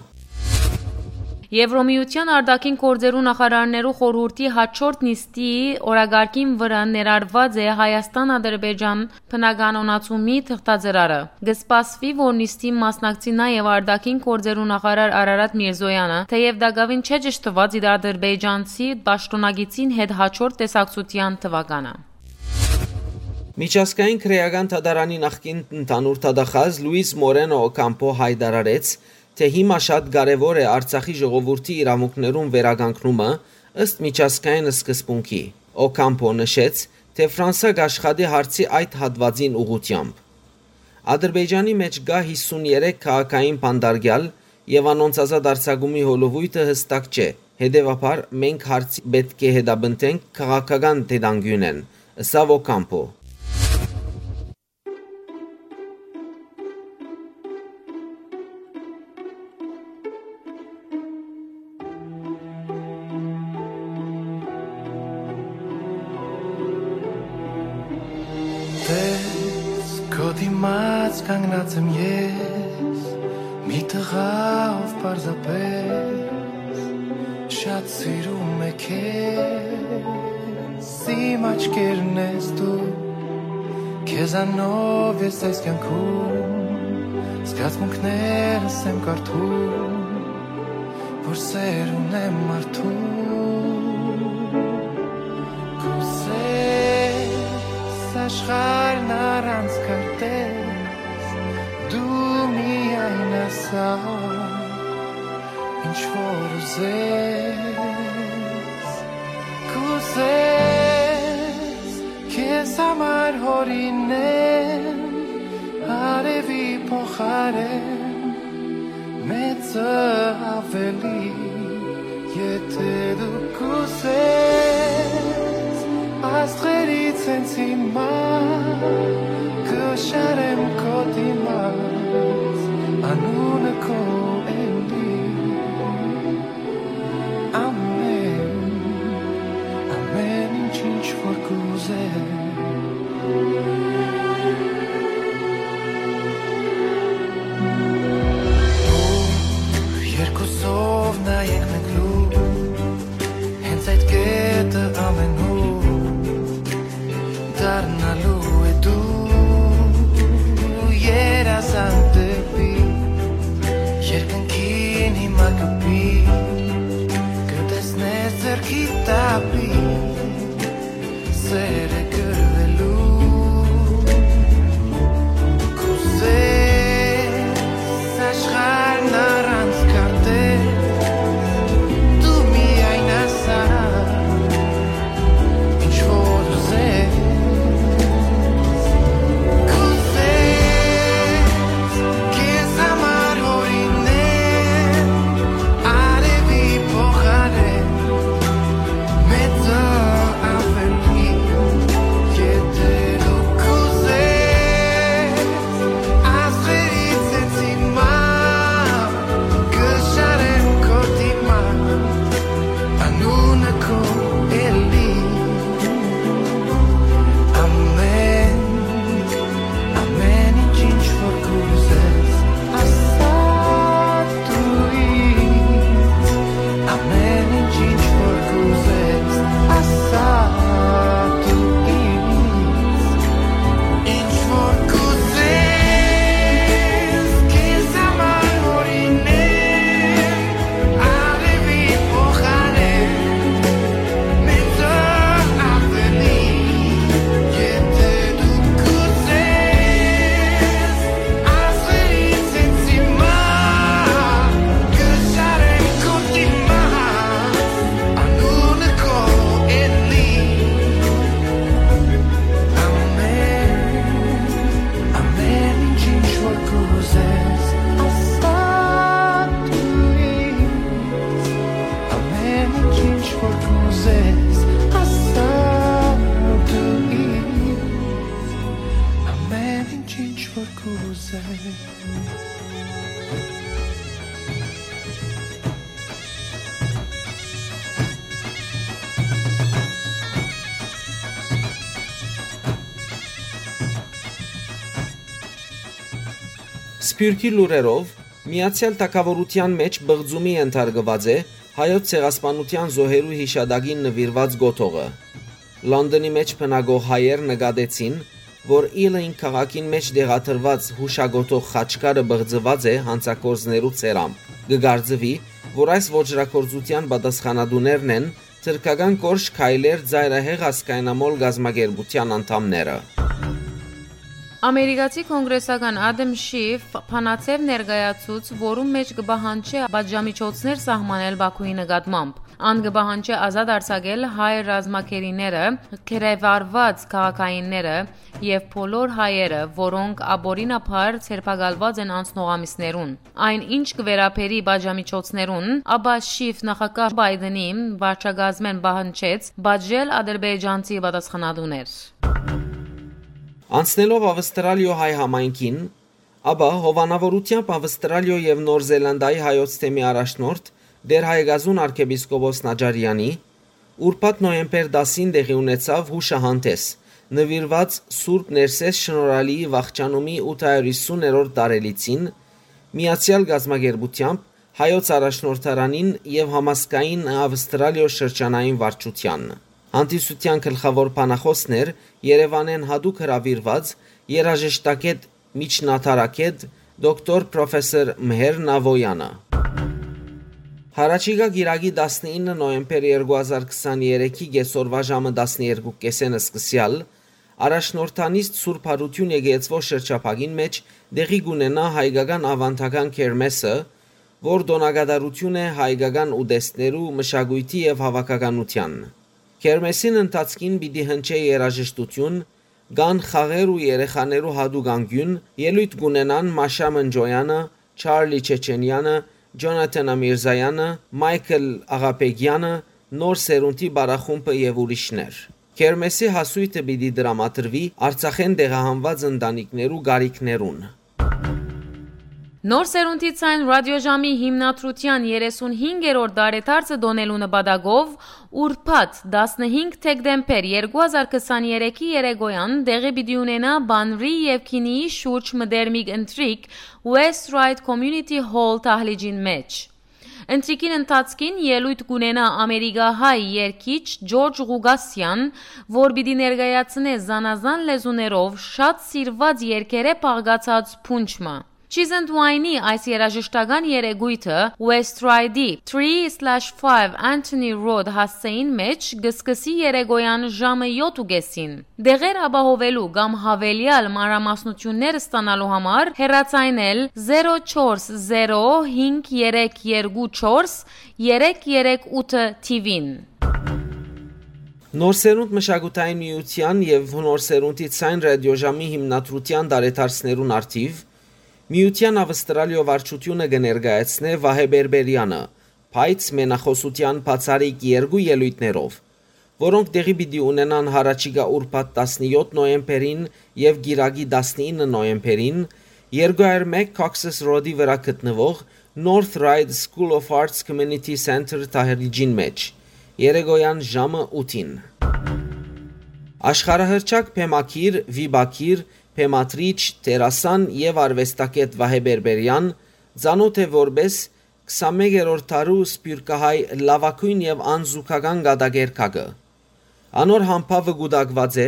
Եվրոմիութեան արտաքին գործերու նախարարներու խորհուրդի յաջորդ նիստի օրակարգին վրայ ներառուած է Հայաստան-Ադրբեջան բնականոնացումի թղթածրարը։ Կը սպասուի, որ նիստին մասնակցի նաեւ արտաքին գործերու նախարար Արարատ Միրզոյանը, թէեւ տակաւին չէ ճշդուած իր ադրբեջանցի պաշտօնակիցին հետ յաջորդ տեսակցութեան թուականը։ Միջազգային քրէական դատարանի նախկին ընդհանուր դատախազ Լուիս Մորենո Օքամփո յայտարարեց, թէ հիմա շատ կարեւոր է Արցախի ժողովուրդի իրաւունքներուն վերականգնումը ըստ միջազգային սկզբունքի։ Օքամփո նշեց, թէ Ֆրանսա կաշխատի հարցի այդ հատուածին ուղղութեամբ։ Ադրբեջանի մէջ կայ հիսուն երեք քաղաքային բանտարկեալ եւ անոնց ազատ արձակումի հոլովոյթը յստակ չէ, հետեւաբար մենք հարցի պէտք է հետապնդենք քաղաքական դետանգիւնէն, ըսաւ Օքամփո։ Տես, քո դիմաց կանգնած եմ ես, մի տղա, ով պարզապես շատ սիրում է քեզ, իմ աչքերն ես դու, քեզանով ես այս կյանքում, զգացմունքներս եմ կարդում, որ սեր ունեմ մարդու։ Կուզես աշխարհն առանց քարտեզ, դու միայն ասա, ինչ որ ուզես, կուզես քեզ համար հորինեմ արևի փոխարեն, մեծը ավելի, եթե դու կուզես, աստղերից հենց հիմա կշարեմ քո դիմաց, անունը քո էլի, ամեն, ամեն ինչ, ինչ որ կուզես։ Դառնալու է դու երազանք դեպի երկնքին հիմա կպի, կտեսնես ձեռքի տապի, սերը կրվելու, կուզես աշխարհն առանց քարտեր, դու միայն ասա, ինչ որ ուզես, կուզես քեզ համար հորինել, արեւի փոխարեն մեծ աւելի, եթե դու կուզես, աստղերից հենց հիմա կը շարեմ քո դիմաց, անունը քո էլի, ամեն, ամեն ինչ, ինչ որ կուզես, ասա դու ինձ, ամեն ինչ, ինչ որ կուզես, ասա դու ինձ, ինչ որ կուզես, քեզ համար հորինել, արեւի փոխարեն, մեծ աւելի, եթե դու կուզես, աստղերից հենց հիմա կը շարեմ քո դիմաց, անունը քո էլի, ամեն, ամեն ինչ, ինչ որ կուզես, ասա դու ինձ, ամեն ինչ, ինչ որ կուզես, ասա դու ինձ, ամեն ինչ, ինչ որ կուզես։ Սփիւռքի լուրերով, Միացեալ Թագաւորութեան մէջ պղծումի ենթարկուած է Հայոց ցեղասպանութեան զոհերու յիշատակին նուիրուած կոթողը։ Լոնդոնի մէջ բնակող հայեր նկատեցին, որ Իլին քաղաքին մէջ տեղադրուած յուշակոթող խաչքարը պղծուած է յանցագործներու ցերամով։ Կը կարծուի, որ այս ոճրագործութեան պատասխանատուներն են թրքական Կորշ քայլեր ծայրահեղ ազգայնամոլ կազմակերպութեան անդամները։ Ամերիկացի կոնգրեսական Ադամ Շիֆ բանաձեւ ներկայացուց, որուն մէջ կը պահանջէ պատժամիջոցներ սահմանել Բաքուի նկատմամբ։ Ան կը պահանջէ ազատ արձակել հայ ռազմագերիները, գերեվարուած քաղաքայինները եւ բոլոր հայերը, որոնք ապօրինաբար ձերբակալուած են անցնող ամիսներուն։ Այն ինչ կը վերաբերի պատժամիջոցներուն, ապա Շիֆ նախագահ Բայդենի վարչակազմէն պահանջեց պատժել ադրբեջանցի պատասխանատուներ։ Անցնելով Ավստրալիոյ հայ համայնքին, ապա հովանաւորութեամբ Ավստրալիոյ եւ Նոր Զելանդիայի հայոց թեմի առաջնորդ Տէր Հայկազուն արքեպիսկոպոս Նաճարեանի, ուրբաթ նոյեմբեր տասին տեղի ունեցաւ յուշահանդէս, նուիրուած Սուրբ Ներսէս Շնորհալիի վախճանումի ութ հարիւր յիսուներորդ տարելիցին, միացեալ կազմակերպութեամբ Հայոց առաջնորդարանին եւ Համազգային Ավստրալիոյ շրջանային վարչութեան։ Հանդիսութեան գլխաւոր բանախօսն էր Երեւանէն յատուկ հրաւիրուած երաժշտագէտ, միջնադարագէտ, դոկտոր պրոֆեսոր Մհեր Նավոյանը։ Յառաջիկայ կիրակի տասնինը նոյեմբեր երկու հազար քսաներեքի կեսօրուայ ժամը տասներկու կէսէն սկսեալ, առաջնորդանիստ Սուրբ Յարութիւն եկեղեցւոյ շրջափակին մէջ տեղի կունենայ հայկական աւանդական քերմէսը, որ տօնակատարութիւն է հայկական ուտեստներու, մշակոյթի եւ հաւաքականութեան։ Քերմէսին ընթացքին պիտի հնչէ երաժշտութիւն, կան խաղեր ու երեխաներու յատուկ անկիւն, ելոյթ կունենան Մաշա Մնջոյանը, Չարլի Չեչենեանը, Ջոնաթան Ամիրզայանը, Մայքլ Աղաբեգեանը, Նոր Սերունդի պարախումբը եւ ուրիշներ։ Քերմէսի հասոյթը պիտի տրամադրուի Արցախէն տեղահանուած ընտանիքներու կարիքներուն։ Նոր Սերունդի Ձայն ռադիոժամի հիմնադրութեան երեսունհինգերորդ տարեդարձը տօնելու նպատակով ուրբաթ, տասնհինգ դեկտեմբեր երկու հազար քսաներեքի երեկոյան տեղի պիտի ունենայ Բանրի եւ Քինիի շուրջ մտերմիկ ընթրիք West Ryde Community Hall դահլիճին մէջ։ Ընթրիքին ընթացքին ելոյթ կ'ունենայ ամերիկահայ երգիչ Ջորջ Ղուկասեան, որ պիտի ներկայացնէ զանազան լեզուներով շատ սիրուած երգերէ բաղկացած փունջ մը։ Չիզընդ Ուայնի այս երաժշտական երեկոյթը West Ride-ի three slash five Anthony Road հասցէին մէջ կը սկսի երեկոյան ժամը յոթ ու կէսին։ Դեղեր ապահովելու կամ յաւելեալ մանրամասնութիւններ ստանալու համար հեռացայնել zero four zero five three two four three three eight TV-ն։ Նոր սերունդ մշակութային միութեան եւ Նոր սերունդի ցայն ռադիոժամի հիմնադրութեան տարեդարձներուն առթիւ միութեան Ավստրալիոյ վարչութիւնը կը ներկայացնէ Վահէ Բերբերեանը, բայց մենախօսութեան բացառիկ երկու ելոյթներով, որոնք տեղի պիտի ունենան յառաջիկայ ուրբաթ տասնեօթ նոյեմբերին եւ կիրակի տասնինը նոյեմբերին, երկու հարյուր մէկ Cox's Road-ի վրայ գտնուող North Ryde School of Arts Community Center դահլիճին մէջ, երեկոյան ժամը ութին։ Աշխարհահռչակ բեմագիր, վիպագիր, բեմադրիչ, դերասան եւ արուեստագէտ Վահէ Բերբերեան ծանօթ է որպէս քսանմեկերորդ դարու սփիւռքահայ լաւագոյն եւ անզուգական կատակերգակը։ Անոր համբաւը կուտակուած է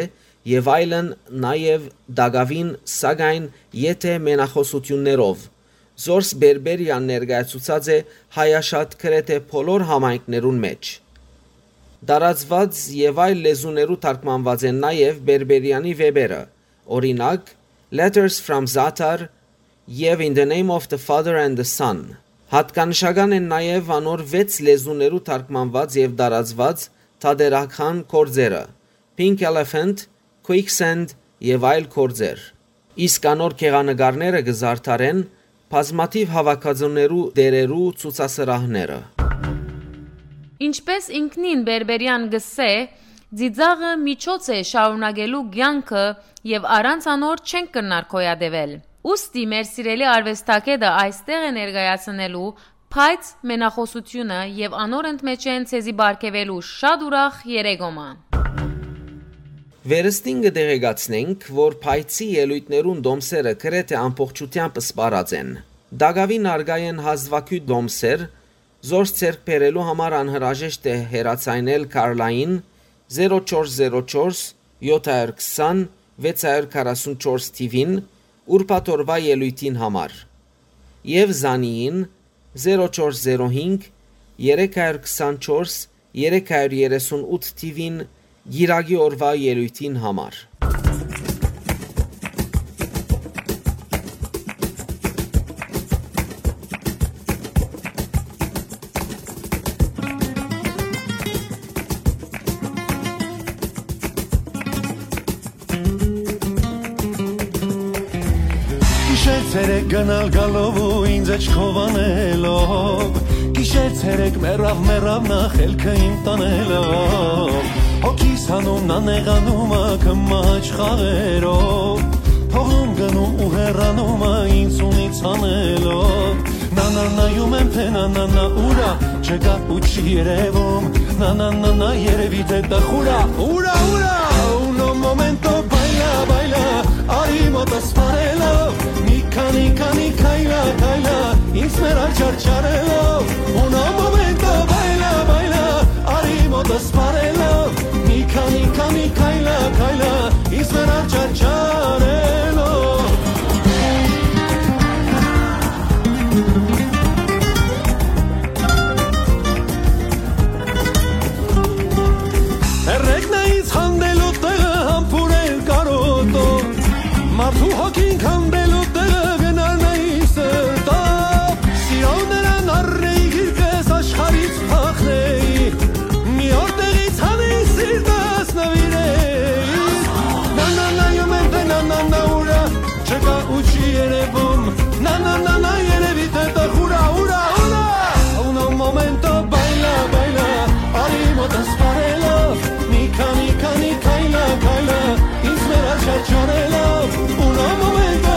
եւ այլն, նաեւ տակաւին, սակայն եթէ մենախօսութիւններով, զորս Բերբերեան ներկայացուցած է հայաշատ գրեթէ բոլոր համայնքներուն մէջ։ Տարածուած եւ այլ լեզուներու թարգմանուած են նաեւ Բերբերեանի վէպերը, օրինակ, Letters from Zatar եւ In the Name of the Father and the Son։ Յատկանշական են նաեւ անոր վեց լեզուներու թարգմանուած եւ տարածուած թատերական գործերը՝ Pink Elephant, Quicksand եւ այլ գործեր։ Իսկ անոր գեղանկարները կը զարդարեն բազմաթիւ հաւաքածուներու տերերու ցուցասրահները։ Ինչպէս ինքնին Բերբերեան կ'ըսէ, ծիծաղը միջոց է շարունակելու կեանքը եւ առանց անոր չենք կրնար գոյատեւել։ Ուստի մեր սիրելի արուեստագէտը այստեղ է ներկայացնելու, բայց մենախօսութիւնը եւ անոր ընդմէջէն ձեզի պարգեւելու շատ ուրախ երեկոմը։ Վերստին կը տեղեկացնենք, որ փայցի ելոյթներուն տոմսերը գրեթէ ամբողջութեամբ սպառած են։ Տակաւին արկայ են հազուագիւտ տոմսեր, զորս ձեռք բերելու համար անհրաժեշտ է հեռացայնել Քարլային zero four zero four seven two zero six four TV-ն ուրբաթ օրուայ ելոյթին համար եւ Զանիին zero four zero five three two four three thirty-eight TV-ն գիրագի օրուայ ելոյթին համար։ Գիշեր ցերեկ գնալ գալով ու ինձ աչքով անելով, գիշեր ցերեկ մեռավ, մեռավ նախ ելքը իմ տանելով, հոգիս հանում, նա նեղանում ա քմաչ խաղերով, թողում գնում ու հեռանում ա ինձ ունից անելով, նա, նա, նայում եմ, թե նա, նա, նա ուր ա, չկա ու չի երևում, նա, նա, նա, նա երևի թե տխուր ա, ուր ա, ուր ա, uno momento, baila, baila, արի մոտս սպառելով, մի քանի, քանի քայլա, քայլա, ինձ մեր աչար չարելով, uno momento, baila, baila, արի մոտս սպառելով, մի քանի, քանի քայլա, քայլա, ինձ մեր աչար չարելով։ Հերրեքն է ինձ հանդելու տեղը, համբուրել կարոտով, մարդու հոգին քանդելու տեղը, գնար նայ սրտով, սիրով նրան առնեի, գիրկս աշխարհից փախնեի, մի օր տեղից հանեի, սիրտս նվիրեի, նա, նա, նայում եմ, թե նա, նա, նա ուր ա, չկա ու չի երևում, նա, նա, նա, նա երևի թե տխուր ա, ուր ա, ուր ա, uno momento, baila, baila, արի մոտս սպառելով, մի քանի, քանի քայլա, քայլա, ինձ մեր աչար չարելով, uno momento,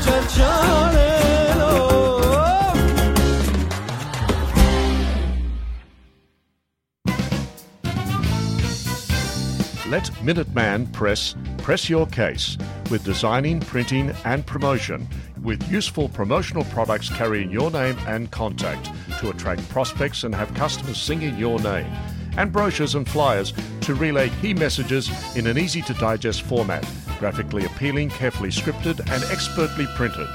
չարչարելով։ Let Minuteman Press press your case with designing, printing, and promotion, with useful promotional products carrying your name and contact to attract prospects and have customers singing your name, and brochures and flyers to relay key messages in an easy to digest format, graphically appealing, carefully scripted, and expertly printed.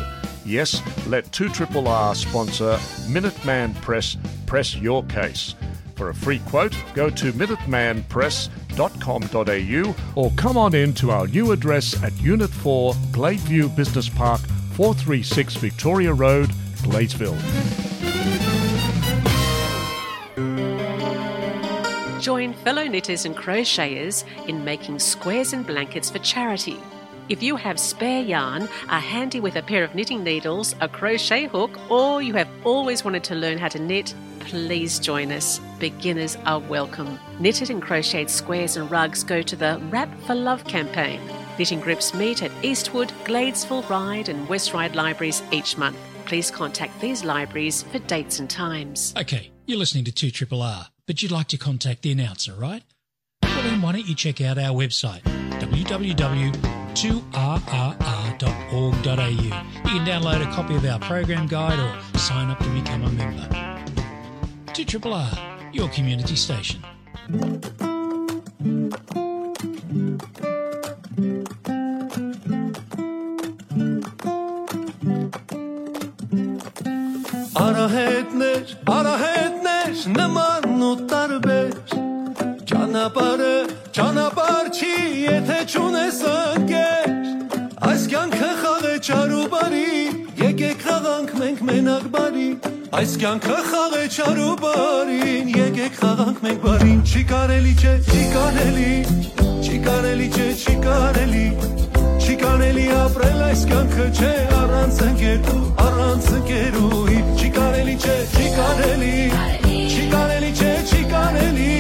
Yes, let two triple R sponsor Minuteman Press press your case. For a free quote, go to minuteman press dot com dot a u or come on in to our new address at Unit four, Gladeview Business Park, four three six Victoria Road, Gladesville. Join fellow knitters and crocheters in making squares and blankets for charity. If you have spare yarn, are handy with a pair of knitting needles, a crochet hook, or you have always wanted to learn how to knit, please join us. Beginners are welcome. Knitted and crocheted squares and rugs go to the Wrap for Love campaign. Knitting groups meet at Eastwood, Gladesville Ryde and West Ryde libraries each month. Please contact these libraries for dates and times. Okay, you're listening to two triple R, but you'd like to contact the announcer, right? Well, then why don't you check out our website, w w w two r r r dot org dot a u. You can download a copy of our program guide or sign up to become a member. Two triple R, your community station. Արահետներ, արահետներ, նման ու տարբեր, ճանապարհը ճանապարհ չի, եթե չունես ընկեր։ Այս կյանքը խաղ է չար ու բարի, եկեք խաղանք մենք մենակ բարի։ Այս կյանքը խաղ է չար ու բարին, եկեք խաղանք մենք բարին։ Չի կարելի, չէ, չի կարելի, չի կարելի, չէ, չի կարելի, չի կարելի ապրել այս կյանքը, չէ, առանց ընկերու, առանց ընկերուհի։ Չի կարելի, չէ, չի կարելի, չի կարելի, չէ, չի կարելի,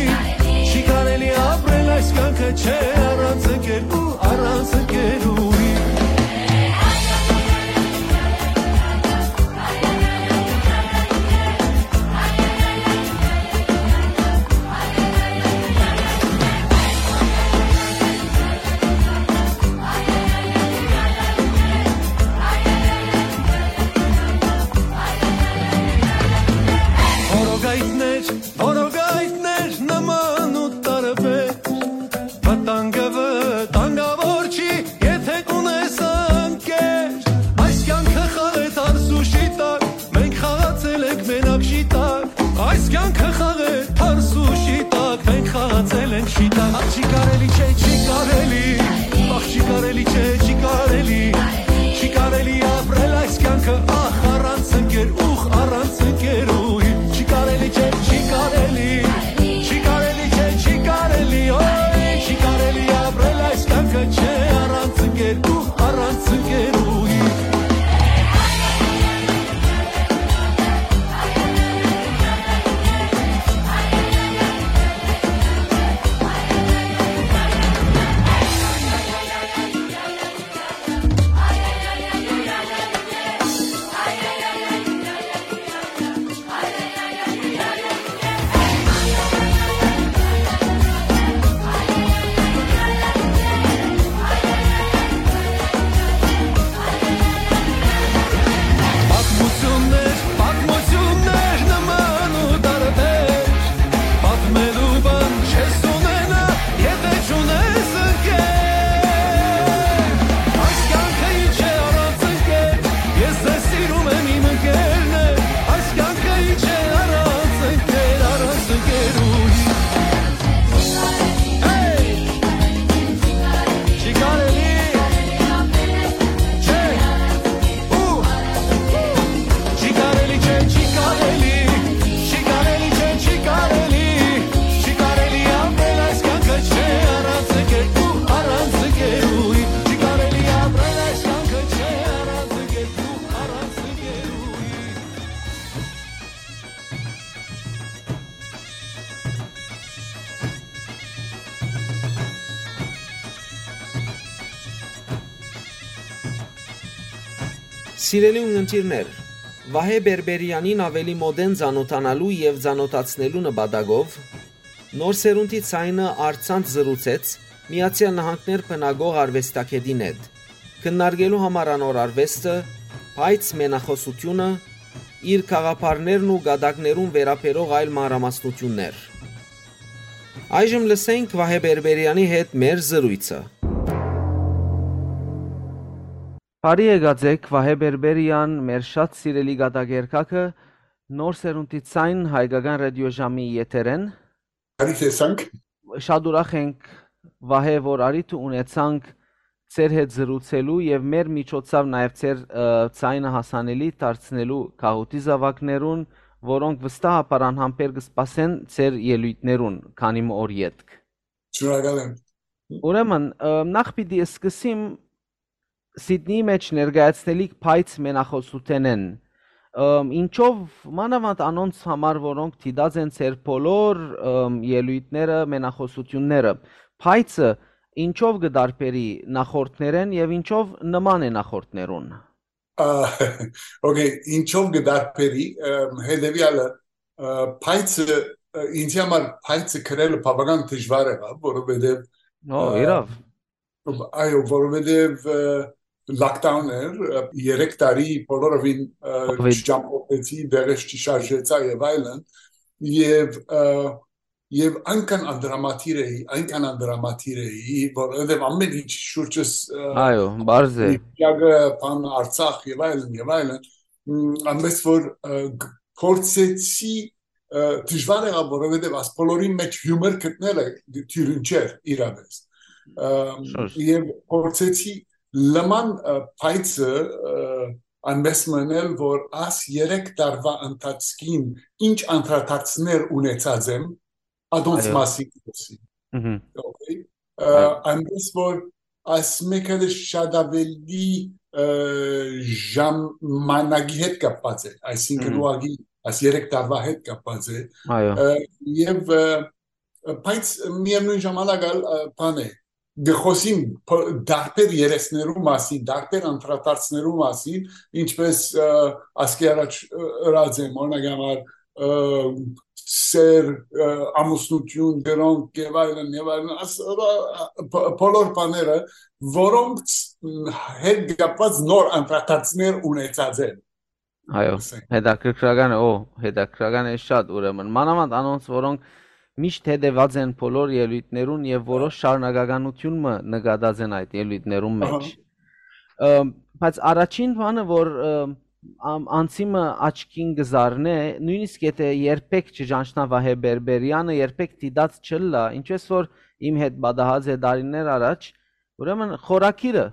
չի կարելի ապրել այս կյանքը, չէ, առանց ընկերու, առանց ընկերուհի։ Որոգայթներ, որոգայթներ նման ու տարբեր, վտանգը վտանգավոր չի, եթե կունես ընկեր։ Այս կյանքը խաղ է թարս ու շիտակ, մենք խաղացել ենք մենակ շիտակ։ Այս կյանքը խաղ է թարս ու շիտակ, մենք խաղացել ենք շիտակ։ Ախ, չի կարելի, չէ, չի կարելի, ախ, չի կարելի, չէ, չի կարելի, չի կարելի ապրել այս կյանքը, ախ, առանց ընկեր, ուխ, առանց ընկերուհի։ Չի կարելի, չէ, չի կարելի, չի կարելի, չէ, չի կարելի, օյ, չի կարելի ապրել այս կյանքը, չէ, առանց ընկեր, ուխ, առանց ընկերուհի։ Սիրելի ունգընտիրներ, Վահէ Բերբերեանին աւելի մօտէն ծանօթանալու եւ ծանօթացնելու նպատակով Նոր սերունդի ձայնը առցանց զրուցեց Միացեալ Նահանգներ բնակող արուեստագէտին հետ, քննարկելու համար անոր արուեստը, բայց մենախօսութիւնը, իր գաղափարներն ու կատակներուն վերաբերող այլ մանրամասնութիւններ։ Այժմ լսենք Վահէ Բերբերեանի հետ մեր զրոյցը։ Բարի եկած էք, Վահէ Բերբերեան, մեր շատ սիրելի կատակերգակը, Նոր սերունդի ձայն, հայկական ռադիոժամի եթերէն։ Բարի տեսանք։ Շատ ուրախ ենք, Վահէ, որ առիթը ունեցանք ձեր հետ զրուցելու եւ մեր միջոցով նաեւ ձեր, ը, ձայնը հասանելի դարձնելու գաղութի զաւակներուն, որոնք վստահաբար անհամբեր կը սպասեն ձեր ելոյթներուն, քանի մը օր ետք։ Շնորհակալ եմ։ Ուրեմն, ը, նախ պիտի սկսեմ Սիդնիի մէջ ներկայացնելիք փայծ մենախօսութենէն։ Ըմ, ինչով, մանաւանդ անոնց համար, որոնք դիտած են ձեր բոլոր, ըմ, ելոյթները, մենախօսութիւնները, փայծը ինչով կը տարբերի նախորդներէն եւ ինչով նման է նախորդներուն։ Ա, օքեյ, ինչով կը տարբերի, ըմ, հետեւեալը, ը, փայծը, ը, ինձի համար փայծը գրելը բավական դժուար եղաւ, որովհետեւ, Ո, ը, իրաւ։ Այո, որովհետեւ, ը, lockdown էր, ը, երեք տարի բոլորովին, ը, Կովիդ։ չճամփորդեցի, դեղս չշարժեցա եւ այլն, եւ, ը, եւ այնքան անդրամատիր էի, այնքան անդրամատիր էի, որովհետեւ ամեն ինչ շուրջս, ը, Այո, բարձ է։ Պիագը, բան, Արցախ եւ այլն, եւ այլն, մ, այնպես որ, ը, գ-, փորձեցի, ը, դժուար եղաւ, որովհետեւ աս բոլորին մէջ հիումոր գտնելը դիւրին չէր իրապես։ Ը, Շուշ։ Եւ փորձեցի լման, ը, փայծը, ը, այնպես մնել, որ աս երեք տարվա ընթացքին ինչ անդրադարձներ ունեցած եմ, ադոնց Այո։ մասին կ'ասի։ Մհմ։ Օքեյ։ Ը, Այո։ Այնպես որ այս մեկը շատ ավելի, ը, ժամանակի հետ կապված է, այսինքն Մհմ։ ուղղակի այս երեք տարվա հետ կապված է, Այո։ ը, եւ, ը, բայց միևնույն ժամանակ ալ, ը, բան է, գխոսին փ-, դարբեր երեսներու մասին, դարբեր անդրադարձներու մասին, ինչպես, ը, ասկի առաջ, ը, ըրած եմ, օրինակ համար, ը, սեր, ը, ամուսնություն, դրանք եւ այլն, եւ այլն, աս-, ը, ը, բ-, բոլոր բաները, որոնք, մ, հետ կապված նոր անդրադարձներ ունեցած են, Այո, ասենք։ Հետաքրքրական է, օ, հետաքրքրական է շատ, ուրեմն, մանաւանդ անոնց, որոնք միշտ հետեւած են բոլոր ելոյթներուն եւ որոշ շարունակականություն մը նկատած են այդ ելոյթներուն Ահա։ Մէջ։ Ը, բայց առաջին բանը, որ, ը, ամ-, անցի մը աչքին կը զարնէ, նոյնիսկ եթէ երբեք չճանչնայ Վահէ Բերբերեանը, երբեք դիտած չըլլայ, ինչպես որ իմ հետ պատահած է տարիներ առաջ, ուրեմն խորագիրը,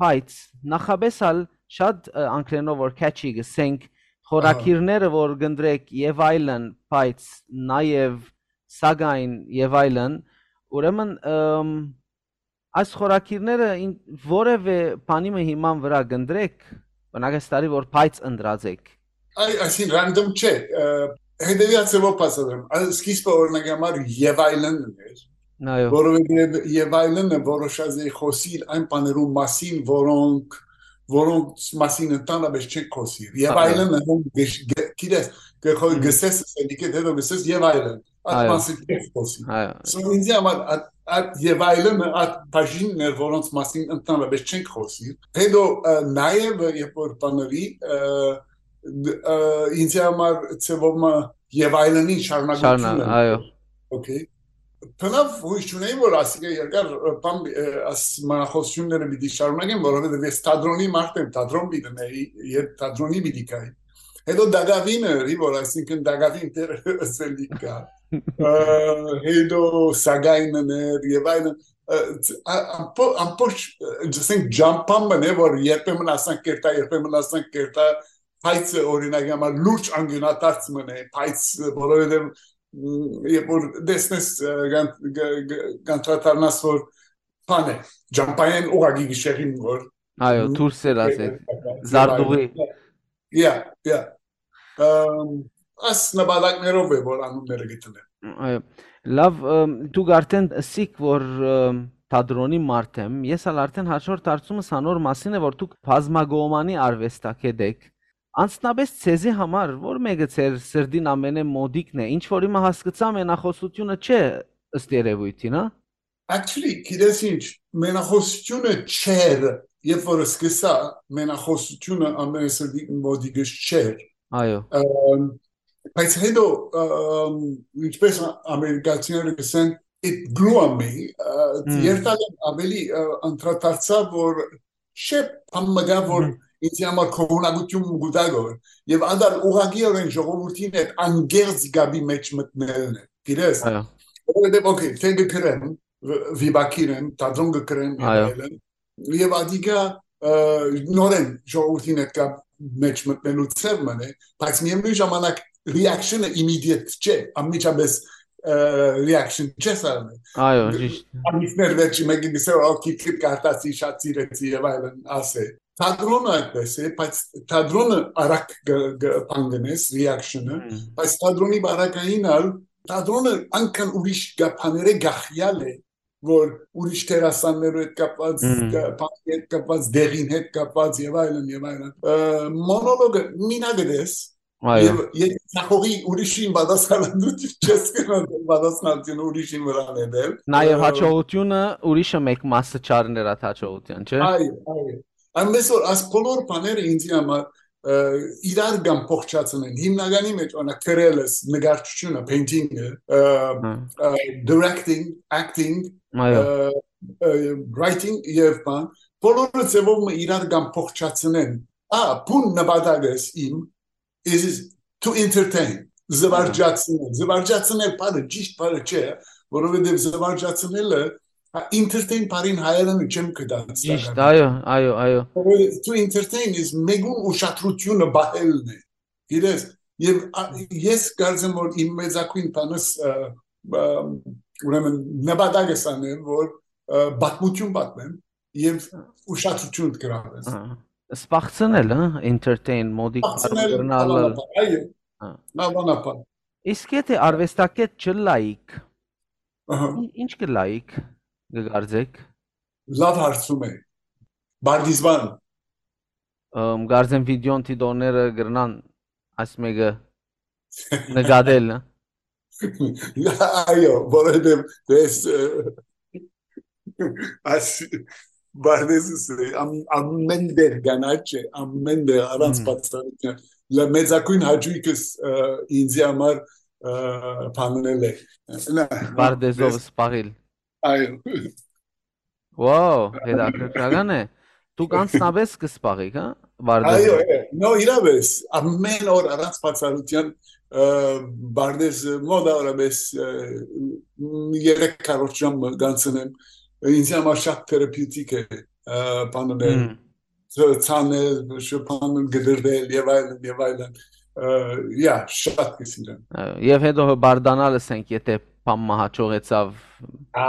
բայց նախապես ալ շատ, ը, անգլերենով որ catchy կ'ըսենք, Ահա։ խորագիրները որ կ'ընտրեք եւ այլն, բայց նաեւ, սակայն եւ այլն, ուրեմն, ըմ, այս խորագիրները ին-, որևէ բանի մը հիման վրա կ'ընտրեք, օրինակ, այս տարի որ բայց ընտրած եք։ Այ, այսին random չէ, ը, հետեւյալ ձեւով բացատրեմ։ Ա, սկիզբը, օրինակ համար, եւ այլն էր, Այո։ որովհետեւ եւ այլն է որոշած էի խոսիլ այն բաներու մասին, որոնք, որոնց մասին ընդհանրապես չենք խոսիլ։ Եւ Այո։ այլն է, հոն գշ-, գ-, գիտես, գ-, խո-, Մհմ։ գսես, ասելիք է, հետո գսես եւ այլն։ Այդ Այո։ մասին չենք խոսիլ։ Այո։ So, ինձի համար այդ, այդ եւ այլն է, այդ բաժինն էր, որոնց մասին ընդհանրապես չենք խոսիլ։ Հետո, ը, նաեւ, երբ որ բաների, ը, դ-, ը, ինձի համար ձևով մը եւ այլնին շարունակությունը։ Շարունակ, այո։ Օքեյ։ Բնավ հույս չունեի, որ ասիկա երկար, ը, բան, ը, աս մնախոսությունները պիտի շարունակեմ, որովհետեւ ես թատրոնի մարդ եմ, թատրոն պիտի նեի, երբ թատրոնի պիտի գայի։ Հետո դակավինը, որ այսինքն դակավին դեր ասելիք կա։ Ը, հետո սակայնն էր եւ այլն, ը, ց-, ա-, ամբո-, ամբողջ, ը, ասենք, ջամփան մն է, որ երբեմն ասանք կերտա, երբեմն ասանք կերտա, բայց, օրինակ համար, լուրջ անգյունադարձ մն է, բայց, որովհետեւ, մ, երբ որ տեսնես, ը, կան-, գ-, գ-, կանդրադառնաս, որ բան է, ջամփայեն ուղղակի գիշերին, որ Այո, դուրս էր ասել, Ը, զարդուղի։ Yeah, yeah. Ըմ, աս նպատակներով է, որ անունները գտնել։ Այո, լավ, ըմ, դուք արդեն ըսիք, որ, ըմ, թատրոնի մարդ եմ, ես ալ արդեն հաջորդ հարցումս անոր մասին է, որ դուք բազմակողմանի արուեստագետ էք։ Անձնապէս ձեզի համար ո՞ր մէկը ձեր սրտին ամենէ մօտիկն է, ինչ որ հիմա հասկցայ, մենախօսութիւնը չէ, ըստ երեւոյթին, հա։ Actually, գիտես ինչ, մենախօսութիւնը չէր, երբ որ սկսա, մենախօսութիւնը ամենասրտի մոտիկս չէր։ Այո։ Ըմ, բայց հետո, ըմ, ինչպես ա-, ամերիկացիները կսեն, it grew on me, ը, Մմ։ երթալը ավելի, ը, անդրադարձա, որ չէ, բան մը կա, որ Մհմ։ ինձի համար քողունակություն մը կուտա գոր, եւ ադալ ուղղակիորեն ժողովրդին հետ անգերձ գաբի մեջ մտնելն է, գիտես։ Այո։ Որովհետեւ, օքեյ, թէ կը գրեմ, վիպակիր եմ, թատրոն կը կրեմ Այո։ Եւելը, եւ ադիկա, ը, նորեն ժողովրդին հետ կապ մեջ մտնելու ձև մն է, բայց միևնույն ժամանակ reaction-ը immediate չէ, անմիջապես, ը, reaction չէ սարանը։ Այո, ճիշտ։ Ամիսներ վերջի մեկը գսե, «Օ, քիքիտ կարտացի, շատ սիրեցի» եւ այլն, ասե։ Թատրոնը այդպես է, բայց թատրոնը արագ գ-, գ-, բան գնես, reaction-ը, Մմ։ բայց թատրոնի բարակային ալ, թատրոնը անկան ուրիշ գ-, բաներէ գախյալ է, որ ուրիշ դերասաններու հետ կապված, Մմ։ կա-, բանի հետ կապված, դեղին հետ կապված եւ այլն եւ այլն։ Ը, մոնոլոգը մինակ ես, Այո։ եւ, եւ ցախողի ուրիշին պատասխանատու չես գնալ, պատասխանատուն ուրիշին վրան է դել։ Նաեւ Ը, հաջողությունը ուրիշը մեկ մասը չառներ այդ հաջողության, չէ՞։ Այո, այո։ Այնպես որ այս բոլոր բաները ինձի համար, ը, իրար կամ փոխչացնեն, հիմնականի մեջ, օրինակ, գրելս, նկարչությունը, painting-ը, ը, Հա։ ը, directing, acting, Այո։ ը, ը, writing եւ բան, բոլորը ձևով մը իրար կամ փոխչացնեն։ Ա, բուն նպատակս իմ is to entertain, զվարճացնել։ Զվարճացնել բառը, ճիշտ բառը չէ, որովհետեւ զվարճացնելը, հա, entertain բառին հայերէնը չեմ գտած Ճիշտ, տակառը։ այո, այո, այո։ Որովհետեւ to entertain is մեկուն ուշադրությունը բահելն է։ Գիտես, եւ, ա, ես կարծեմ, որ իմ մեծագույն բանս, ը, ը, ուրեմն նպատակս անեմ, որ, ը, պատմություն պատմեմ եւ ուշադրություն գրավեմ։ Ահա։ Սպաղցնել, հա, entertain, մոդիկ Սպաղցնել բառը կրնալ։ Անանապան, այո, Հա։ անանապան։ Իսկ եթե արվեստագետ չլայիք, Ահա։ ի-, ինչ կլայիք, կգարձեք։ Լավ հարցում է։ Բարդիզվան։ Ըմ, կարծեմ վիդեոն դիտողները կրնան այս մեկը նկատել, հա։ Այո, որովհետև ես, ը, այս բարդեզս է, ամ-, ամեն տեղ կանաչ է, ամեն տեղ առանց Մհմ։ բացառության։ Լա-, մեծագույն հաճույքս, ը, ինձի համար, ը, բաննել է։ Նա, Բարդեզով ես սպաղիլ։ Այո։ Wow, հետաքրքրական է։ Դուք անձնապես կսպաղիք, հա, Բարդեզը։ Այո, այո, նո, իրավես, ամեն օր առանց բացառության, ը, Բարդեզը մոտավորապես, ը, երեք քառորդ ժամ կանցնեմ, ինձ համար շատ թերապիւտիկ է, ը, բանն է, Հմ։ ց-, ցանել, շփանել, գդրվել և այլն, և այլն, ը, yeah, շատ կսիրեմ։ Ը, և հետո հպարտանալ, ասենք, եթե բան մը հաջողեցավ։ Ա,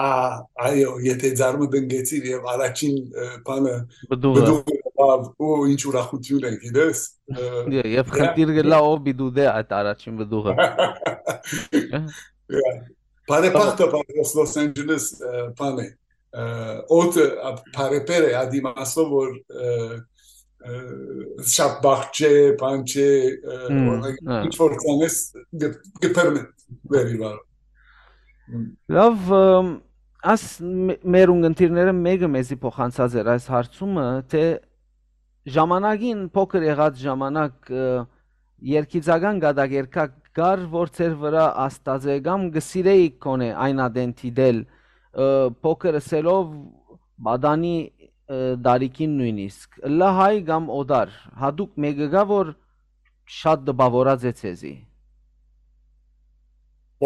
այո, եթե ձարմը տնկեցիր և առաջին, ը, բանը Բդուղը։ բդուղը լավ, ու ինչ ուրախություն է, գիտես, ը, Դե, և yeah, խնդիր գլա ով պիտի դե այդ առաջին բդուղը։ Yeah. Բարեպախտը, բարեպախտը Լոս Անջելես, ը, բան է, ը, օդը, ա, բարեպեր է, այդ իմաստով, որ, ը, ը, շատ բախ չէ, բան չէ, ը, Հմ, օրինակ, հա։ ինչ որ ցանես, գ-, գբերնե վերիվար։ Հմ։ Լավ, ըմ, աս մե-, մեր ունգընտիրները մեկը մեզի փոխանցած էր այս հարցումը, թե ժամանակին, փոքր եղած ժամանակ, ը, երգիծական կատակերգակ կար, որ ձեր վրա ազդած է, կամ կը սիրեիք գոնե այն ատեն դիտել, ը, փոքր ըսելով պատանի, ը, տարիքին նույնիսկ, ըլլա հայ կամ օտար, հատուկ մեկը կա, որ շատ տպաւորած է ձեզի։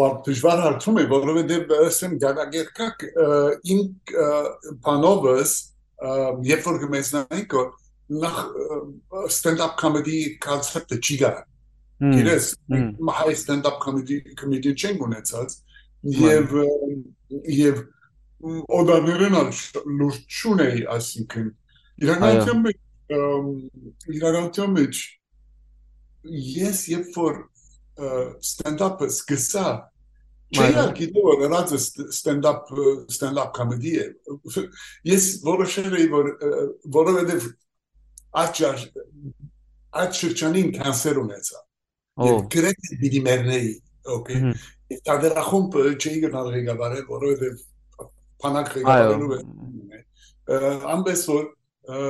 Ո-, դժվար հարցում է, որովհետև, ը, ասեմ, կատակերգակ, ը, իմ, ը, բանովս, ը, երբ որ կմեծնայինք, որ նախ, ը, stand-up comedy concept-ը չի գա։ Հմ, Գիտես, հմ։ մենք հայ stand-up comedy, comedy չենք ունեցած, Մայ։ և, ը, և, մ, օտարներեն ալ չ-, լուրջ չունեի, այսինքն, իրականության Այո։ մեջ, ըմ, իրականության մեջ ես երբ որ, ը, stand-up-ը սկսա, Չէի Այո։ ալ գիտեր, որ ըրածը st-, stand-up, stand-up comedy է։ Ես որոշել էի, որ, ը, որովհետև այդ շարժ-, այդ շրջանին կանսեր ունեցա։ Ո։ Եւ գրեթէ պիտի մեռնեի, օքեյ։ Մհմ։ Եւ թատերախումբը չէի գնալ ղեկավարել, որովհետեւ բանակ Այո։ ղեկավարելու է։ Ը, այնպես որ, ը,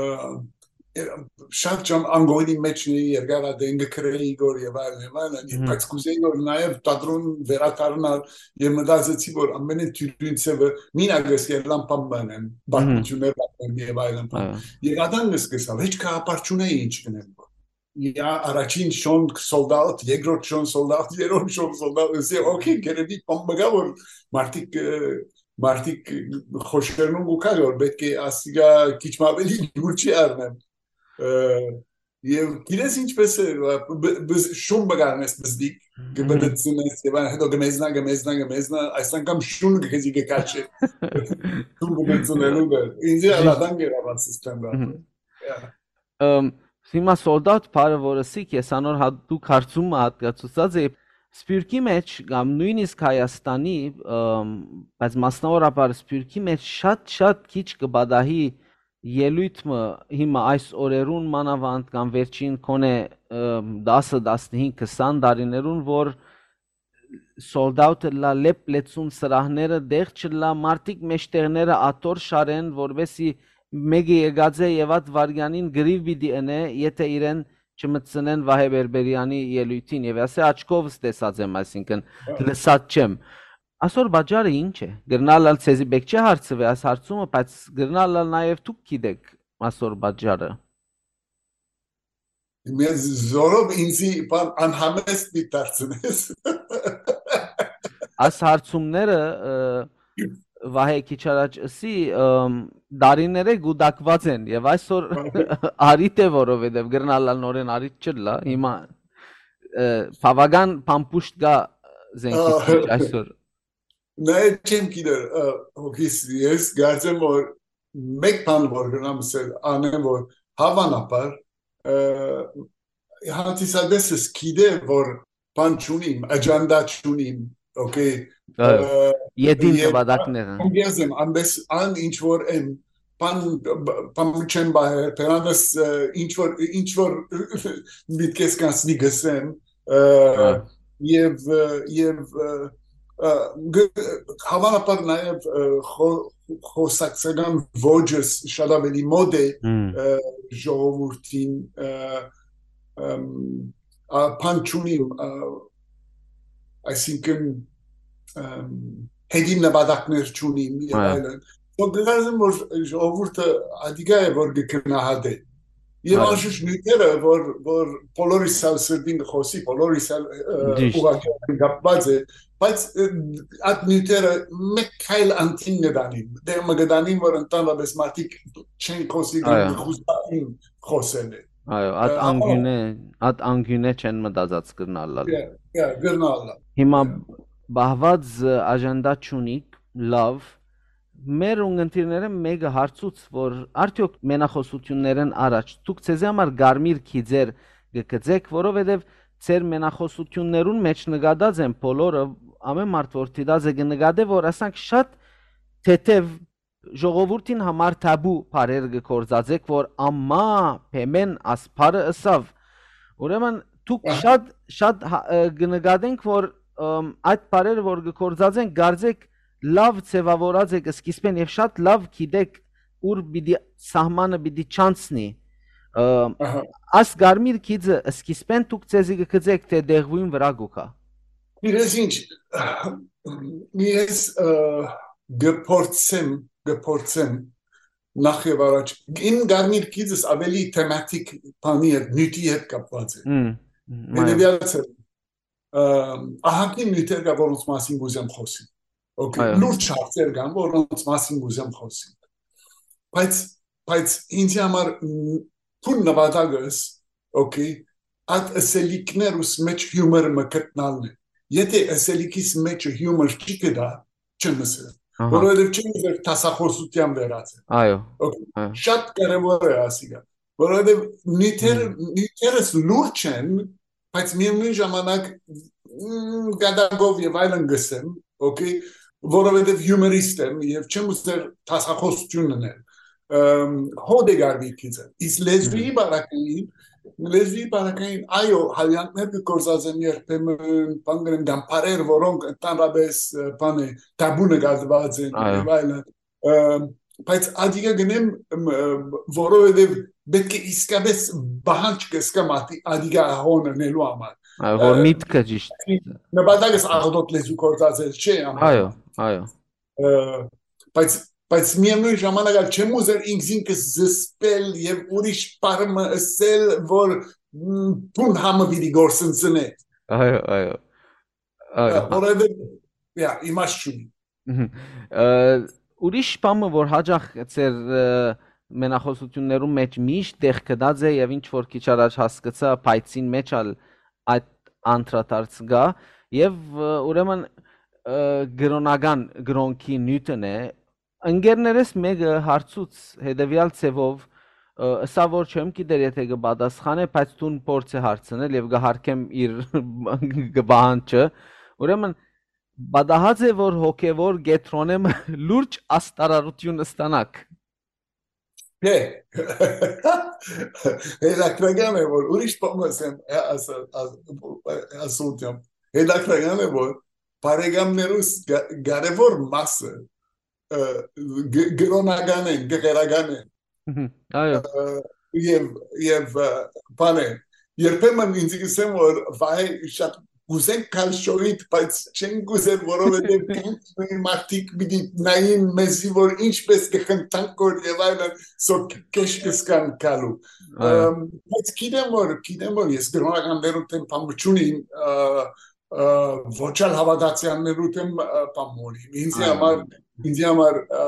շատ ջան անգողնի մեջ էի, երկար ադեն կը գրեի Իգոր եւ այլն, եւ այլն, Մհմ։ բայց կուզեի, որ նաեւ թատրոն վերադառնալ, եւ մտածեցի, որ ամենէն դիւրին ձեւը մինակ ես ելլան բան բանեմ, Մհմ։ պատմություններ պատմեմ եւ այլն բան։ Այո։ Եւ ադան ես կսալ, հեչ գաղափար չունեի ինչ կնեմ։ Իա առաջին շոն sold out, երկրորդ շոն sold out, երրորդ շոն sold out, ես, օքեյ, գերեբի բան մը գա, որ մարդիկ, ը, մարդիկ խոշերնուն կու կա, որ պետք է ասիգա քիչ մը ավելի յուր չի առնեմ։ Ը, եւ գիտես ինչպես է, բ-, բ-, շուն մը գարնես բզդիկ, Մհմ։ կբդցնես, եւ այն հետո կմեզնա, կմեզնա, կմեզնա, այս անգամ շուն քեզի կքաշի։ Շուն բդցնելու դեր։ Ինձ Ճիշդ։ ալադան գերավան սիստեմ Մհմ։ Yeah. Ըմ, հիմա sold out բառը, որ ըսի, ես անոր հատուկ հարցումը յատկացուցած էի, Սփիւռքի մեջ կամ նոյնիսկ Հայաստանի, ըմ, բայց մասնաւորաբար Սփիւռքի մեջ շատ-շատ քիչ կը պատահի ելոյթ մը հիմա այս օրերուն մանաւանդ կամ վերջին քոնէ, ըմ, տասը, տասնհինգ, քսան տարիներուն, որ sold out ըլլայ, լեփ լեցուն սրահները տեղ չըլլայ, մարդիկ մէջտեղները աթոռ շարեն, որպէսզի մէկը եկած է եւ այդ վայրկեանին կռիւ պիտի ընէ, եթէ իրեն չմտցնեն Վահէ Բերբերեանի ելոյթին, եւ ասէ, աչքովս տեսած եմ, այսինքն, Հա։ լսած չեմ։ Ասոր պատճառը ի՞նչ է։ Կրնալ ալ, ձեզի պէտք չէ հարցուի այս հարցումը, բայց կրնալ ալ նաեւ դուք գիտէք ասոր պատճառը։ Մեզ զորով ինձի բան անհամեստ մի դարձնես։ Այս հարցումները, ը, Վահէ քիչ առաջ ըսի, ըմ, դարիներէ գուտակուած են եւ այսօր արիթ է, որովհետեւ կրնալ ալ նորէն արիթ չըլլայ, հիմա, ը, բաւական փամփուշտ կայ զենքիս Ա, մեջ այսօր։ Նայ չեմ գիտեր, ը, հոգիս, ես կարծեմ, որ մեկ բան որ կրնամ ասել, անեմ, որ հաւանաբար, ը, հանդիսատեսս գիտե, որ բան չունիմ, աջանդա չունիմ, օքեյ, Այո, ը, ետին եւ նպատակները։ անգեզ եմ, ամբես ան ինչ որ եմ, բան, բ-, բան չեմ բահեր, բերանս, ը, ինչ որ, ինչ որ միտքես կանցնի գսեմ, ը, Այո։ եւ, ը, եւ, ը, ը, գ-, հաւանաբար նաեւ, ը, խո-, խոսակցական ոճս շատ ավելի մոտ է, Հմ։ ը, ժողովուրդին, ը, ըմ, ա, բան չունիմ, ա, այսինքն, ըմ, հետին նպատակներ չունիմ եւ Այո։ այլն։ Ու գնազեմ, որ ժողովուրդը ադիգա է, որ կգնահատե։ Եվ Այո։ անշուշտ նյութերը, որ, որ բոլորիս ալ սրտին կխոսի, բոլորիս ալ, ը, Ճիշտ։ ուղղակի կապված է, բայց, ը, այդ նյութերը մեկ քայլ անդին կդանին, դեր մը կդանին, որ ընդհանրապես մարդիկ չեն խոսի, Այո։ կխուզային խոսել է։ Այո, այդ Ը, անգյունե, այդ անգյունե չեն մտածած կրնալ ալ։ Yeah, yeah, կրնալ ալ։ Հիմա Yeah. բահված, ը, աջանդա չունիք, լավ, մեր ունգընտիրներէն մէկը հարցուց, որ արդյոք մենախոսութիւններէն առաջ դուք ձեզի համար կարմիր գիծեր կը գծեք, որովհետեւ ձեր մենախոսութիւններուն մեջ նկատած են բոլորը, ամեն մարդ որ դիտած է կը նկատէ, որ ասանք շատ թեթեւ ժողովուրդին համար թաբու բառեր կը գործածեք, որ ամա Փեմեն ասփարը ըսաւ։ Ուրեմն դուք Ահա։ շատ, շատ հա-, ը, կը նկատենք, որ, ըմ, այդ բառերը որ կը գործածեն, կարծեք լավ ձևավորած եք սկիզբեն եւ շատ լավ գիտեք ուր պիտի սահմանը պիտի չանցնի։ Ը, Ահա։ այս կարմիր գիծը սկիզբեն դուք ձեզի կը գծեք, թե դեղուին վրա կուքա։ Իրես ինչ, ես, ը, կփորձեմ, կփորձեմ նախ եւ առաջ, իմ կարմիր գիծս ավելի թեմատիկ բանի հետ, նյութի հետ կապված է։ Մմ, մմ, Հետեւյալ ձևով, ը, ահագին նյութեր կա, որոնց մասին կուզեմ խոսիմ։ Okay, Այո։ լուրջ հարցեր կան, որոնց մասին կուզեմ խոսիմ։ Բայց, բայց ինձ համար, մ, թուն նպատակս, okay, այդ ըսելիքներուս մեջ հիումոր մը գտնալն է։ Եթե ըսելիքիս մեջ հիումոր չի գտա, չեմ ըսել։ Ահա։ Որովհետև չեմ ուզեր դասախոսության վերածել։ Այո, Okay, այո։ շատ կարևոր է ասիկա, որովհետև նյութեր-, Հմ։ նյութերս լուրջ են, բայց միևնույն ժամանակ, մ, գադակով և այլն գսեմ, Okay, որովհետեւ հիումորիստ եմ եւ չեմ ուզեր դասախոսություն ընել։ Ըմ, հոդ է գարվի քիզը։ Իսկ լեզուի Մհմ։ բարակային, լեզուի բարակային, այո, հալյանքներ կը գործածեմ երբեմն, բան կրեմ, կամ բարեր, որոնք ընդհանրապես, ը, բան է, տաբու նկատուած են Այո։ եւ այլն։ Ը, բայց ադիգա գնեմ, ըմ, ը, որովհետեւ պետք է իսկապես պահանջ կսկամ ադի-, ադիգա հոն ընելու համար։ Այո, որ Ը, միտքը ճիշտ։ նպատակս աղդոտ լեզու գործածել չէ, ամեն Այո, այո։ Ը, բայց, բայց միևնույն ժամանակ ալ չեմ ուզեր ինքզինքս զսպել եւ ուրիշ պարմը ըսել, որ, մ, բուն համը պիտի գործընծնե։ Այո, այո։ Այո, Ը, հա։ որովհետեւ, յա, իմաստ չունի։ Մհմ։ Ը, ուրիշ բանը, որ հաճախ ձեր, ը, մենախոսութիւններուն մէջ միշտ տեղ գտած է եւ ինչ որ քիչ առաջ հասկցայ, փայցին մէջ ալ այդ անդրադարձ կայ եւ, ը, ուրեմն, ը, կրօնական կրօնքի նիւթն է։ Ընկերներս մէկը հարցուց հետեւեալ ձեւով, ը, ըսաւ որ չեմ գիտեր եթէ կը պատասխանէ, բայց դուն փորձ է հարցնել եւ կը հարգեմ իր կը պահանջը։ Ուրեմն, պատահած է որ հոգեվոր կեդրոնէ մը լուրջ աստարարութիւն ստանաք։ Չէ։ Հետաքրական է, որ ուրիշ բան ասեմ, ա-, աս-, աս-, ասում եմ։ Հետաքրական է, որ բարեկամներուս գա-, կարևոր մասը, ը, գ-, կրօնական են, գղերական են։ Մհմ, այո։ Ը, եւ, եւ, ը, բան է, երբեմն ինձ կսեմ, որ վայ, շատ կուզենք գալ շոյիդ, բայց չենք կուզեր, որովհետեւ կան մարդիկ պիտի նային մեզի, որ ինչպես կխնդանք որ եւ այլն, սո քեշ կսկան գալու։ Այո։ Ըմ, բայց գիտեմ որ, գիտեմ որ ես կրօնականներուն դեմ բան չունիմ, ը, ը, ոչ ալ հավատացյալներու դեմ, ը, բան մորիմ։ Ինձի Այո։ համար, ինձի համար, ը,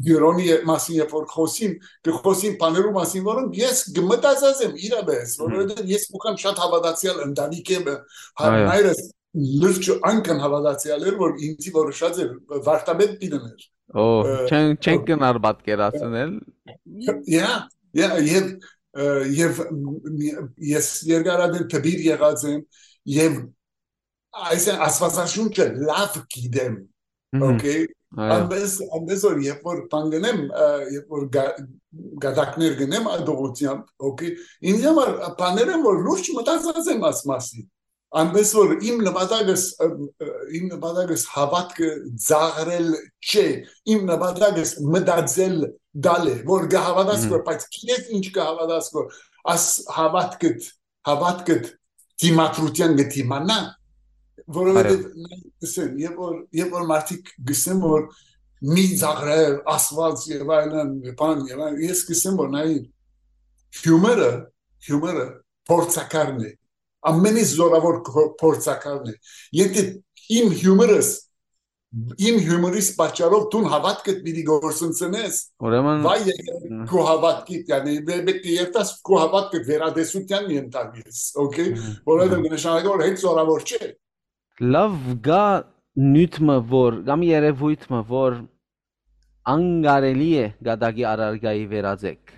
կրոնի ե-, մասին երբ որ խոսիմ, կը խոսիմ բաներու մասին, որոնք ես կմտածած եմ իրապես, Մհմ։ որովհետեւ ես կուքամ շատ հավատացյալ ընտանիք եմ, հա, Այո։ մայրս լուրջ անկան հավատացյալ էր, որ ինձի որոշած էր, վարդապետ պիտի ներ։ Օ, Ը, չեն, չեն օ- գնար պատկերացնել։ Յա, յա, եւ, ը, եւ մ-, մ-, ես երկարատեն դպիր եղած եմ, եւ այսինքն Աստվածաշունչը լավ գիտեմ, Մհմ, okay? Այո։ Այնպես, այնպես որ երբ որ բան գնեմ, ը, երբ որ գա-, գատակներ գնեմ ադողությամբ, okay, ինձ համար բաներ են, որ լուրջ մտածած եմ այս մասին։ Այնպես որ իմ նպատակս, ը, ը, իմ նպատակս հավատքը ծաղրել չէ, իմ նպատակս մտածել դալ է, որ կհավատաս Մհմ։ որ, բայց գիտես ինչ կհավատաս որ, աս հավատքդ, հավատքդ դիմադրութեան կդիմանայ, որովհետեւ Այո։ նայ, ասեմ, երբ որ, երբ որ մարդիկ գսեն որ մի ծաղրել, ասված եւ այլն, բան եւ այլն, ես գսեմ որ նայ, հիումորը, հիումորը փորձակարն է, ամենից զորավոր փոր-, փորձակարն է։ Եթե իմ հիումորս, իմ հիումորիս պատճառով դուն հավատքդ պիտի գործընծնես, Ուրեմն, վայ եկե Մհմ։ քու հավատքիդ, յանի, մե-, մեկը երթաս քու հավատքը վերադեսության ենթարկես, okay? Մհմ, Որովհետեւ մհմ։ կնշանակի որ հետ զորավոր չէ։ Լավ, կա նիւթ մը որ, կամ երեւոյթ մը որ անկարելի է գատակի առարկայի վերածեք։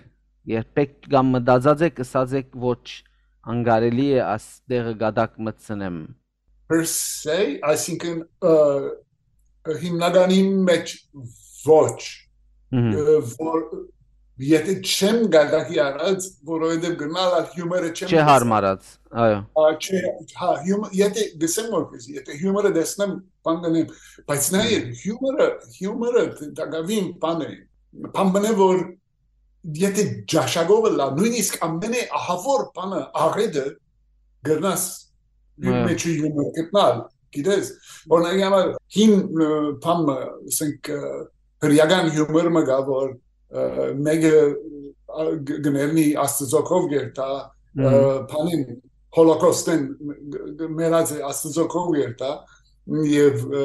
Երբեք կամ մտածած եք, ըսած եք, ոչ, անկարելի է աս տեղը գատակ մտցնեմ։ Per se, այսինքն, ը, հիմնականի մեջ ոչ, Մհմ։ ը, որ, եթե չեմ գատակի առած, որովհետեւ գնալ ալ հիումորը չեմ Չէ տեսած։ Հարմարած, այո։ Ա, չէ, հա, հիում-, եթե գսեմ որ քեզ, եթե հիումորը տեսնեմ, բան կնեմ, բայց նայ, Մհմ։ հիումորը, հիումորը տակավին բան է, բան մնե որ եթե ճաշակով լա, նույնիսկ ամենէ ահավոր բանը, աղետը, գրնաս իր Այո։ մեջ հիումոր գտնալ, գիտես, օրինակ համար հին, ը, բան մը, ասենք, ը, հրեական հիումոր մը գա, որ, ը, մեկը, ա, գ-, գներնի Աստծոքով գերտա, ը, Մհմ։ բանին, հոլոկոստեն մ-, մ-, մեռած է Աստծոքով գերտա, եւ, ը,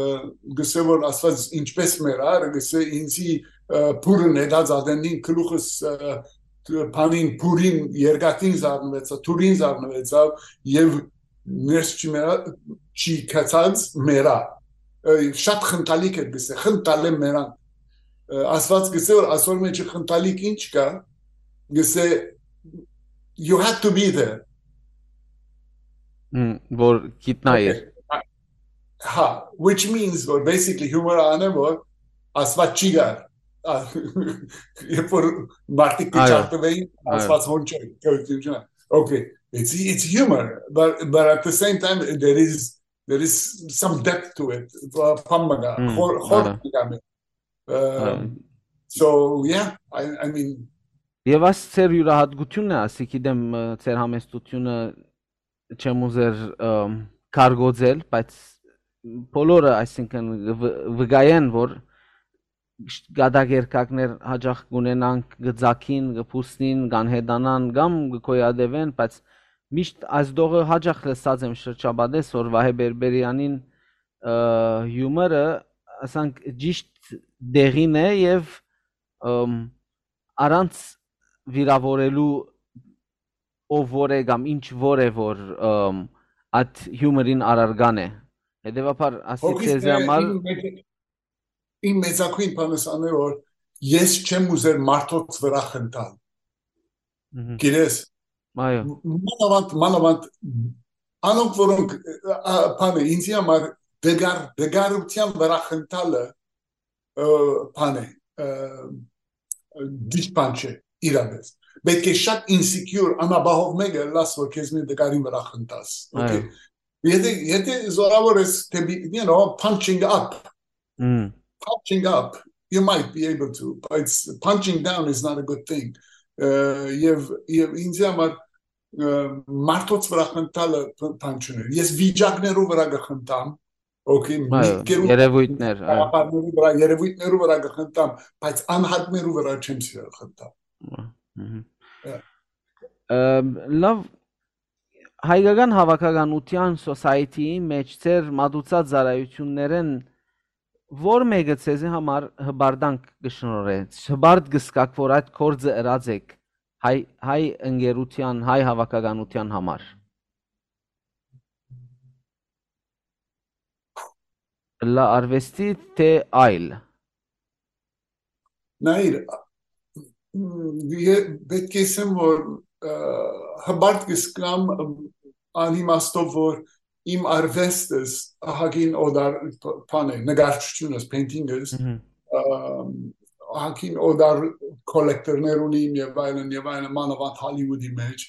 գսե որ Աստված ինչպես մեռար, գսե ինձի, ը, փուրը նետած ադենին գլուխս, ը, բանին փուրին երկաթին զարնվեցա, թուրին զարնվեցավ եւ ներս չի մեռա-, չի քցած մեռա։ Ը, շատ խնդալիք էր գսե, խնդալե մեռան։ Ը, Աստված գսե որ ասոր մեջ խնդալիք ինչ կա, գսե you had to be there։ Մհմ, որ գիտնայիր։ Okay. Հա, which means որ basically humor-ը անեն որ Աստված չի գար։ Երբ որ մարդիկ կը Այո, չարթվեին, այո։ Աստված հոն չէ, գոյություն չունի։ Okay, it's it's humor, but but at the same time there is there is some depth to it. Բան մը կա, Հմ, խոր խոր այո։ Մը կա։ Այո։ Um, so yeah, I I mean Եւ աս ձեր յուրահատկությունն է, ասի գիտեմ, ը, ձեր համեստությունը չեմ ուզեր, ը, կարգոծել, բայց բոլորը, այսինքն, վ-, վկայեն, որ կատակերգակներ հաճախ կունենանք, կծակին, կփուսնին, կանհետանան կամ կկոյատևեն, բայց միշտ այս դողը հաճախ լսած եմ շրջապատես, որ Վահե Բերբերյանին, ը, հիումորը, ասանք, ճիշտ դեղին է եւ, ըմ, առանց վիրավորելու ով որ է կամ ինչ որ է, որ, ըմ, այդ հիումորին առարկան է։ Հետևաբար, ասի Հոգիս ձեզի մե-, համար իմ մեծ-, իմ մեծագույն բանս անե, որ ես չեմ ուզեր մարդոց վրա խնդալ։ Մհմ։ Գիտես, Այո։ մ-, մանավանդ, մանավանդ անոնք, որոնք, ա, բանը, ինձի համար դգար-, դգարության վրա խնդալը, ը, բան է, ը, ճիշտ բան չէ, իրապես։ Պետք է շատ insecure, անապահով մեկը լաս, որ քեզ մի դգարին վրա խնդաս, okay? Այո։ Եթե, եթե զորավոր ես դեպի, you know, punching up, Մհմ։ Punching up, you might be able to, but it's, punching down is not a good thing. Ը, եւ, եւ ինձի համար, ը, մարդոց վրա խնդալը բ-, բան չունի։ Ես վիճակներու վրա կխնդամ, okay, Այո, միտքերու երևույթներ, այո։ գաղափարներու վրա, երևույթներու վրա կխնդամ, բայց անհատներու վրա չեմ սիրել խնդալ։ Մհմ։ Yeah. Ըմ, լավ, հայկական հավաքականության, society-ի մեջ ձեր մատուցած ծառայություններէն ո՞ր մէկը ձեզի համար հպարտանք կը շնորհէ, հպարտ կը զգաք, որ այդ գործը ըրած էք հայ, հայ ընկերության, հայ հավաքականության համար։ Լա արվեստի, թե այլ։ Նայիր, մ, ե-, պետք է ասեմ, որ, ը, հպարտ կը զգամ, մ, անիմաստով, որ իմ արվեստս ահագին օտար բ-, բան է, նկարչությունս, painting-ս, Մհմ։ ը, ահագին օտար collector-ներ ունիմ եւ այլն, եւ այլն, մանավանդ Հոլիվուդի մեջ,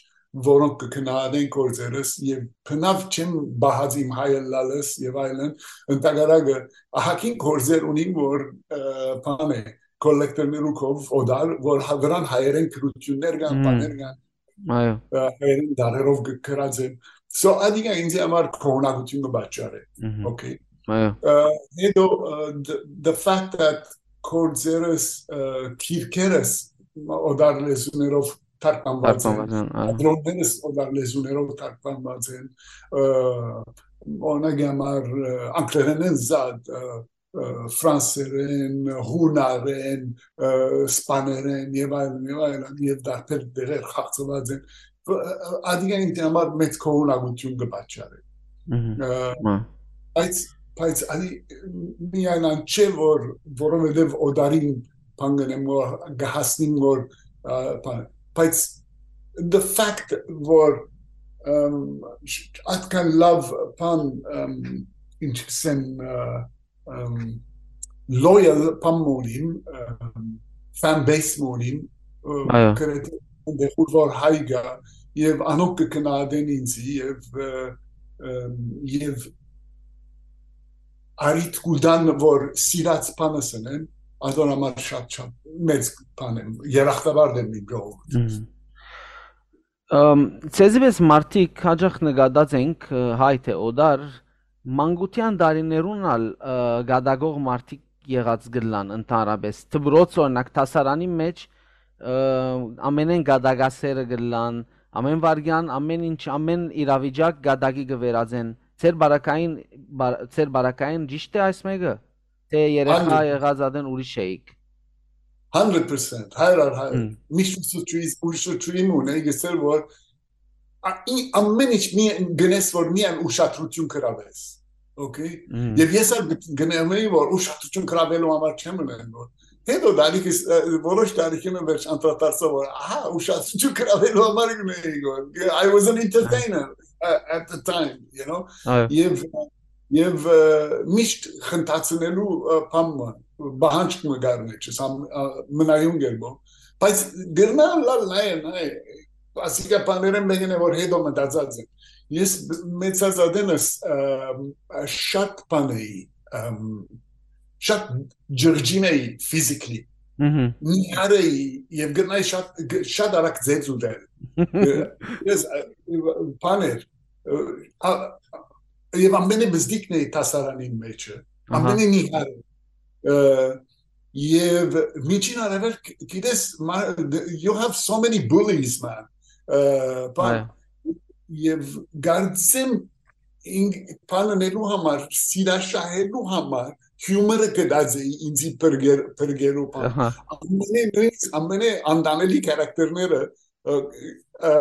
որոնք կը գնահատեն գործերս, եւ բնաւ չեմ պահած իմ հայ ըլլալս եւ այլն, ընդհակառակը, ահագին գործեր ունիմ, որ, ը, բան է, collector-ներու քով օտար, որ հա-, վրան հայերեն գրություններ կան, Մհմ։ բաներ կան, Այո։ ը, հայերեն դարերով գ-, գրած են։ So, ադիգա ինձ համար քողնակություն կը պատճառէ։ Մհմ։ Okay։ Այո։ Ը, հետո, ը, the, the fact that գործերս, ը, գիրքերս օտար լեզուներով թարգմանված են, Թարգմանված են, այո։ թատրոններս օտար լեզուներով թարգմանված են, ը, օրինակ համար, ը, անգլերենէն զատ, ը, ը, ֆրանսերեն, հունարեն, ը, սպաներեն եւ այլն, եւ այլն, եւ դարբեր դերեր խաղցված են։ Ը, ը, ադիգա ինձ համար մեծ քողնակություն կը պատճառէ։ Մհմ։ Ը, Մա։ բայց, բայց ադի միայն այն չէ, որ, որովհետեւ օտարին բան կնեմ, որ կհասնիմ, որ, ը, բան, բայց the fact, որ, ըմ, չ-, այդքան լավ բան, ըմ, ինչ կսեմ, ը, ըմ, loyal բան մը ունիմ, ըմ, fan base մը ունիմ, ը, Այո։ գրեթե այնտեղ, ուր որ հայ գա, եւ անոնք կը գնահատեն ինձ, եւ, ը, ըմ, եւ արիտ կու տան, որ սիրած բանս ընեմ, ադոր համար շատ, շատ մեծ բան եմ, երախտապարտ եմ իմ ժողովուրդ։ Մհմ։ Ըմ, ձեզի պես մարդիկ հաճախ նկատած ենք, ը, հայ թե օտար, մանկության տարիներուն ալ, ը, գատակող մարդիկ եղած կ'ըլլան ընդհանրապես։ Դպրոց, օրինակ, դասարանի մեջ, ը, ամենէն գատակասերը կ'ըլլան, ամեն վարքյան, ամեն ինչ, ամեն իրավիճակ գատակի կը վերածեն։ Ձեր բարակային, բար-, ձեր բարակային ճիշտ է այս մեկը։ Թե երեխա Հանդրեդ։ եղած ատեն ուրիշ էիք։ Hundred percent, հայր առ հայր։ Հմ։ Միշտ ուսուցչուհիս, ուսուցչուհի մուն էի գսել, որ ա-, ի-, ամեն ինչ մի-, գնես, որ միայն ուշադրություն գրավես։ Okay։ Մհմ։ Եվ ես ալ գ-, գնեմ էի, որ ուշադրություն գրավելու համար չեմ ունեն, որ հետո դալիքս, ը, որոշ դալիքին վերջ անդրադարձա, որ, ահա, ուշադրություն գրավելու համար գնեի, որ I was an entertainer, ը, at the time, you know։ Այո։ Եվ, Եւ, ը, միշտ խնդացնելու, ը, բան մը, պահանջք մը կար մեջս, համ, ը, մնայուն կերպով։ Բայց գրնա լալ նայ, նայ, ասիկա բաներէն մեկն է, որ հետո մտածած եմ։ Ես մեծած ատենս, ը, շատ բան էի, ըմ, շատ ջղջին էի physically։ Մհմ։ Նիհար էի եւ գրնայի շատ, գ-, շատ արագ ձեծ ուտել։ Ը, ես, ը, բան էր, ը, ա, եւ ամենէ բզդիկն էի դասարանին մեջը, ահա, ամենէ նիհարը։ Ը, եւ միջին արեւելք, գիտես, մա-, you have so many bullies, man։ Ը, բան, այո, եւ գարձեմ ինք բան ընելու համար, սիրաշահելու համար, հիումորը կդած էի ինձի բրգեր-, բրգերու բան։ Ահա։ Ամենէ նույնիսկ, ամենէ անտանելի քարակտերները, ը, ը,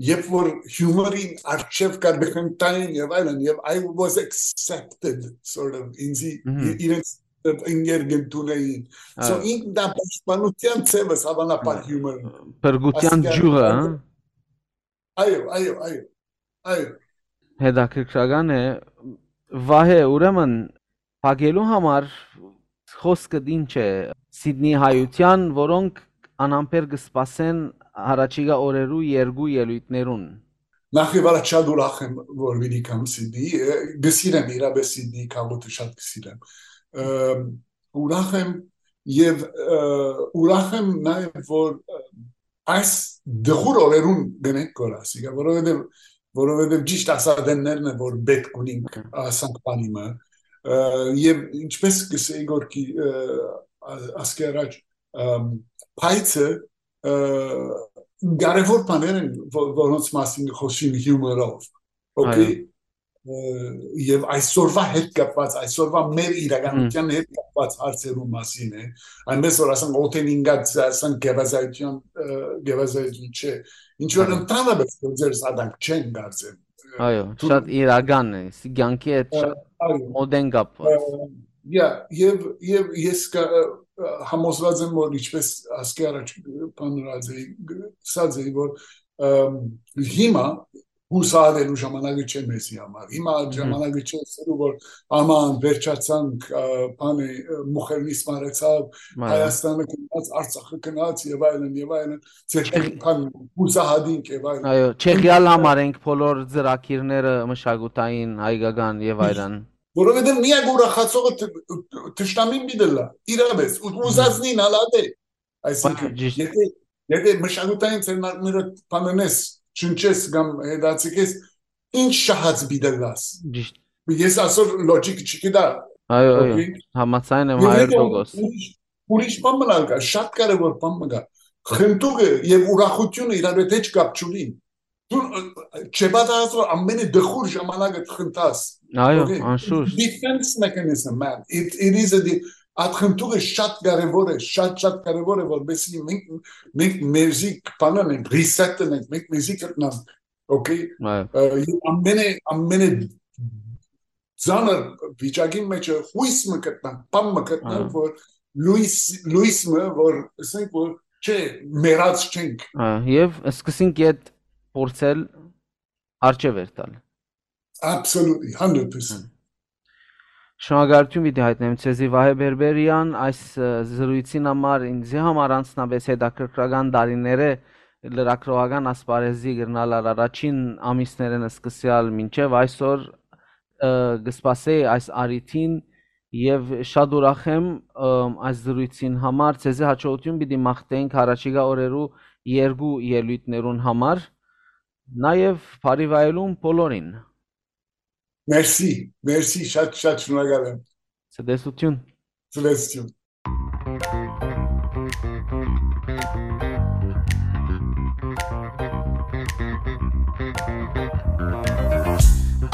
երբ որ հիումորին արջեւ կար, բխնտային եւ այլն, եւ I was accepted, sort of, ինձի, մհմ, ի-, իրենց ընկեր կ'ընդունեին։ So, այո, ինքն դա պաշտպանության ձևս, հավանաբար, հիումոր։ Փրկության ջուղը, հա։ Այո, այո, այո, այո։ Հետաքրքրական է, Վահէ, ուրեմն, փակելու համար խոսքդ ինչ է Սիդնի հայութեան, որոնք անամբեր կը սպասեն յառաջիկայ օրերու երկու ելոյթներուն։ Նախ եւ առաջ շատ ուրախ եմ, որ պիտի գամ Սիդնի, ը, կը սիրեմ, իրապէս Սիդնի քաղաքը շատ կը սիրեմ։ Ը, ուրախ եմ եւ, ը, ուրախ եմ նաեւ, որ, ը, այս դղուր օրերուն գնենք կոր ասիկա, որովհետեւ, որովհետեւ ճիշտ ասատեններն է, որ պէտք ունինք, հմ, ասանք բանի մը, ը, եւ ինչպես կսեի գորքի, ը, ա-, ասկի առաջ, ըմ, փայցը, ը, կարեւոր բաներ են, ո-, որոնց մասին խօսին հիումորով, օքեյ, այո, ը, եւ այսօրվա հետ կապված, այսօրվա մեր իրականության, հմ, հետ կապված հարցերու մասին է, այնպես որ, ասենք, օդեն ինգած, ասենք, գեղազայթության, ը, գեղազայթություն չէ, ինչ որ, այո, ընդհանրապես գործեր սադանք չեն կարծեմ։ Այո, դու շատ իրական է, ս-, կյանքի հետ, ը, շատ, այո, մոտ են կապված։ Ը, yeah, եւ, եւ ես կա-, ը, ը, համոզված եմ, որ ինչպես ասկի առաջ բանրած էի, ը, ասած էի, որ, ըմ, հիմա հուսահատելու ժամանակը չէ մեզի համար։ Հիմա, մհմ, ժամանակը չէ ասելու, որ աման, վերջացանք, ը, բանը, ը, Մուխերնիս մարեցաւ, այո, Հայաստանը գնաց, Արցախը գնաց եւ այլն, եւ այլն, ձեր, չէ, բան, հուսահատինք եւ այլն։ Այո, չեղյալ համար ենք բոլոր ծրագիրները մշակութային, հայկական եւ այլն։ Որովհետեւ միակ ուրախացողը տ-, տ-, թշնամին պիտի լա, իրապէս, ու, մհմ, ուզածնին ալ ատե։ Այսինքն, այո, ճիշտ, եթե, եթե մշակութային ձեռնարկները բանանես, չնչես կամ հետաձգես, ինչ շահած պիտի լաս։ Ճիշտ։ Ես ասոր լոջիկ չկտա, այո, այո, օքեյ, համաձայն եմ, եւ հարյուր տոկոս, ուրիշ, ուրիշ բան մնալ կա, շատ կարեւոր բան մը կա։ Խնդուկը եւ ուրախությունը իրար հետ հեչ կապ չունին։ Դու, ը, չպատահած որ ամենէ դխուր ժամանակը խնդաս, այո, օքեյ, անշուշտ, defense mechanism, man, it, it is a de-, այդ խնդուկը շատ կարեւոր է, շատ, շատ կարեւոր է, որպեսզի մենք, մենք մեզի բանան ենք, reset-ն ենք, մենք մեզի գտնանք, օքեյ։ Այո։ Ը, եւ ամենէ, ամենէ ծանր վիճակին մեջ է, հույս մը գտնանք, բան մը գտնանք, այո, որ լույս, լույս մը, որ, ասենք, որ, չէ, մեռած չենք։ Այո, եւ սկսենք ետ փորձել արջեւ երթալ։ Absolutely, hundred percent։ Հմ։ Շնորհակալություն պիտի հայտնեմ ձեզի, Վահէ Բերբերեան, այս, ը, զրույցին համար, ինձի համար անձնապես հետաքրքրական տարիներէ լրագրողական ասպարեզի կրնալ ալ առաջին ամիսներէն սկսեալ մինչեւ այսօր, ը, կը սպասէի այս առիթին եւ շատ ուրախ եմ, ը, այս զրույցին համար։ Ձեզի հաջողություն պիտի մաղթենք յառաջիկայ օրերու երկու ելոյթներուն համար, նաեւ բարի վայելում բոլորին։ Մերսի, մերսի, շատ, շատ շնորհակալ եմ։ Ցտեսություն։ Ցտեսություն։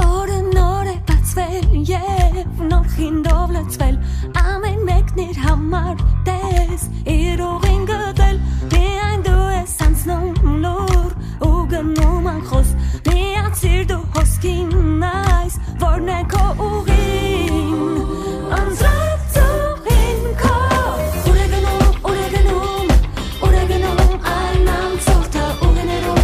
Օրը նոր է բացվել և նոր խինդով լցվել, ամեն մեկն իր համար տես իր ուղին գտել, միայն դու ես անցնում լուր ու գնում անխոս, միացիր դու հոսքին այս, որն է քո ուղին, անձրև ծուխին քո, ուր է գնում, ուր է գնում, ուր է գնում այն անցորդը, ուղիներում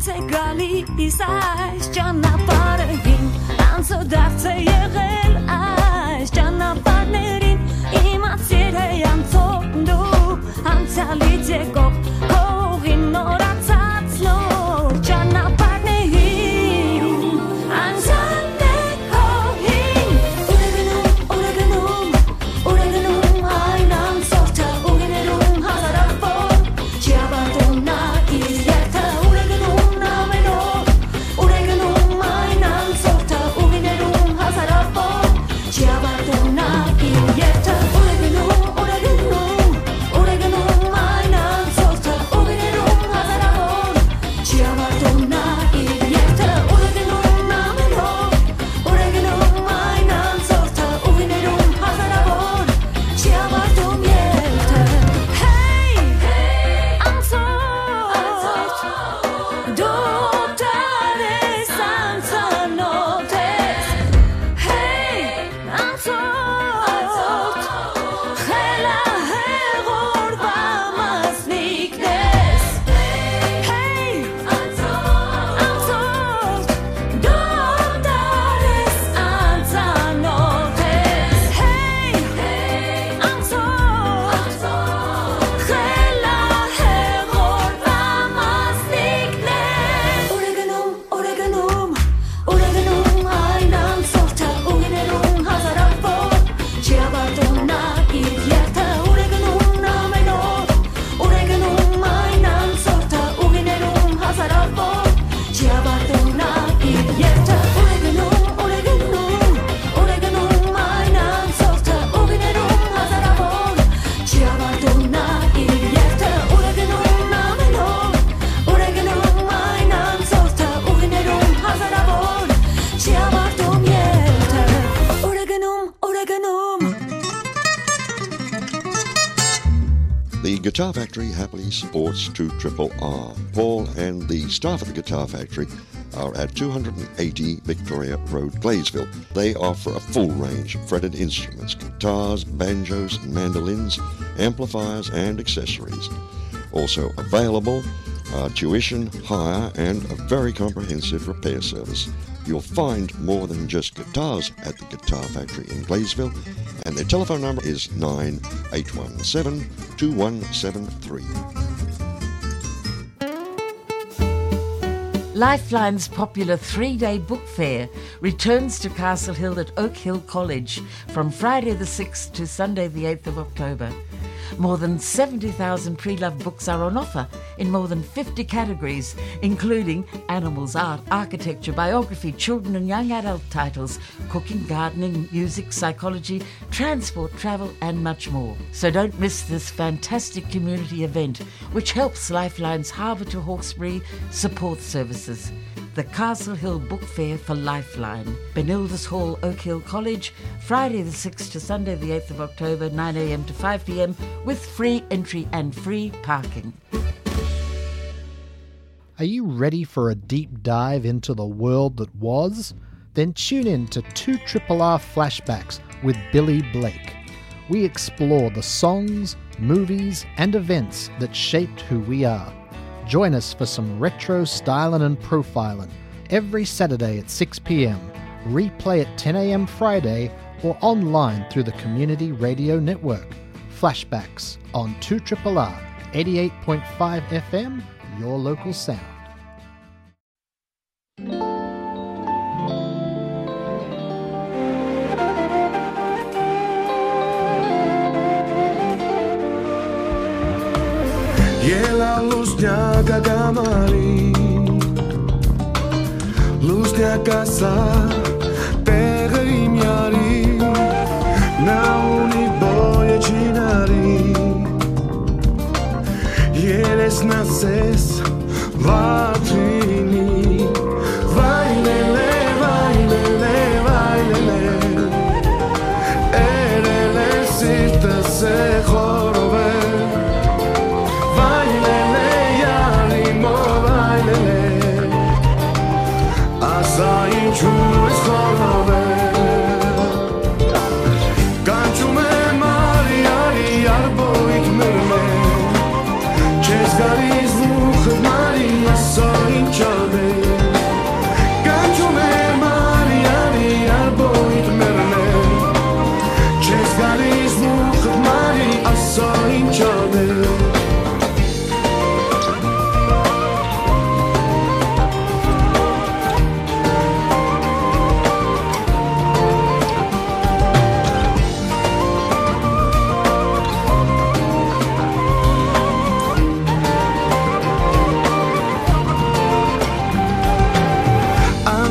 Դարձ է գալիս այս ճանապարհին, անցը դարձ է եղել այս ճանապարհներին, իմացիր է անցող դու անցյալից եկող քո ուղին նորացած նոր ճանապարհներին, անցյալն է քո հին, ուր է գնում, ուր է գնում, ուր է գնում այն անցորդը, ուղիներում հազարավոր, չի ավարտում նա իր երթը, ուր է գնում ամեն օր, ուր է գնում այն անցորդը, ուղիներում հազարավոր, չի ավարտում նա իր երթը, ուր է գնում, ուր է գնում, ուր է գնում այն անցորդը, ուղիներում հազարավոր, չի ավարտում նա իր երթը, ուր է գնում ամեն օր, ուր է գնում այն անցորդը, ուղիներում հազարավոր, չի ավարտում երթը։ Հեյ, անցորդ, դու դառ ես, անծանօթ ես։ Հեյ, անցորդ, խելահեղ օրուայ մասնիկն ես։ Հեյ, անցորդ, դու դառ ես, անծանօթ ես։ Հեյ, անցորդ, խելահեղ օրուայ մասնիկն ես։ Ուր է գնում, ուր է գնում, ուր է գնում այն անցորդը, ուղիներում հազարավոր, չի ավարտում նա իր երթը, ուր է գնում ամեն օր, ուր է գնում այն անցորդը, ուղիներում հազարավոր, չի ավարտում նա իր երթը, ուր է գնում, ուր է գնում, ուր է գնում այն անցորդը, ուղիներում հազարավոր, չի ավարտում նա իր երթը, ուր է գնում ամեն օր, ուր է գնում այն անցորդը, ուղիներում հազարավոր, չի ավարտում երթը, ուր է գնում, ուր է գնում։ The Guitar Factory happily supports two triple R. Paul and the staff at the Guitar Factory are at two hundred and eighty Victoria Road, Gladesville. They offer a full range of fretted instruments, guitars, banjos, mandolins, amplifiers, and accessories. Also available are tuition, hire, and a very comprehensive repair service. You'll find more than just guitars at the Guitar Factory in Gladesville, and their telephone number is nine eight one seven two one seven three. Lifeline's popular three-day book fair returns to Castle Hill at Oak Hill College from Friday the sixth to Sunday the eighth of October. More than seventy thousand pre-loved books are on offer in more than fifty categories, including animals, art, architecture, biography, children and young adult titles, cooking, gardening, music, psychology, transport, travel, and much more. So don't miss this fantastic community event, which helps Lifeline's Harbour to Hawkesbury support services. The Castle Hill Book Fair for Lifeline, Benildus Hall, Oak Hill College, Friday the sixth to Sunday the eighth of October, nine a m to five p m, with free entry and free parking. Are you ready for a deep dive into the world that was? Then tune in to two triple R Flashbacks with Billy Blake. We explore the songs, movies, and events that shaped who we are. Join us for some retro styling and profiling every Saturday at six p m. Replay at ten a m Friday or online through the Community Radio Network. Flashbacks on two triple R, eighty-eight point five F M, your local sound. Ելա լուսնյակ ակամարի, լուսնյակ ասա, տեղը իմ յարի, նա ունի բոյը չինարի, երեսն ասես վատրինի, վայ լե լե, վայ լե լե, վայ լե լե, էրել է սիրտս է խորովեր, վայ լե լե, յարի մո, վայ լե լե, ասա ինչու ես խորովեր, կանչում եմ արի, արի, արբոյք մեր մեր, չես գալիս մուխը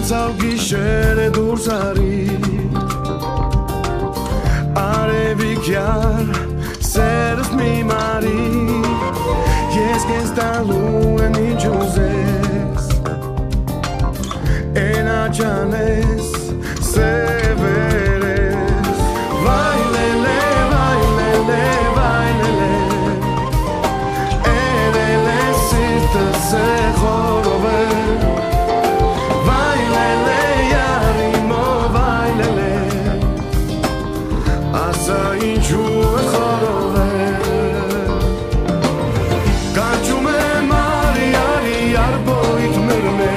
Սաղ գիշերը դուրս արի, արևիկյար սերս մի մարի, ես կեզ տալու եմ ինչ ուզես, էն աչանես, սևերես, վայ լելե, վայ լելե, վայ լելե, էրելե սիրտը սեղորով է, վայ լելե, արիմով, վայ լելե, ասա ինչու է խորով է, կանչում է մարի, արի, արբոյդ մերմե,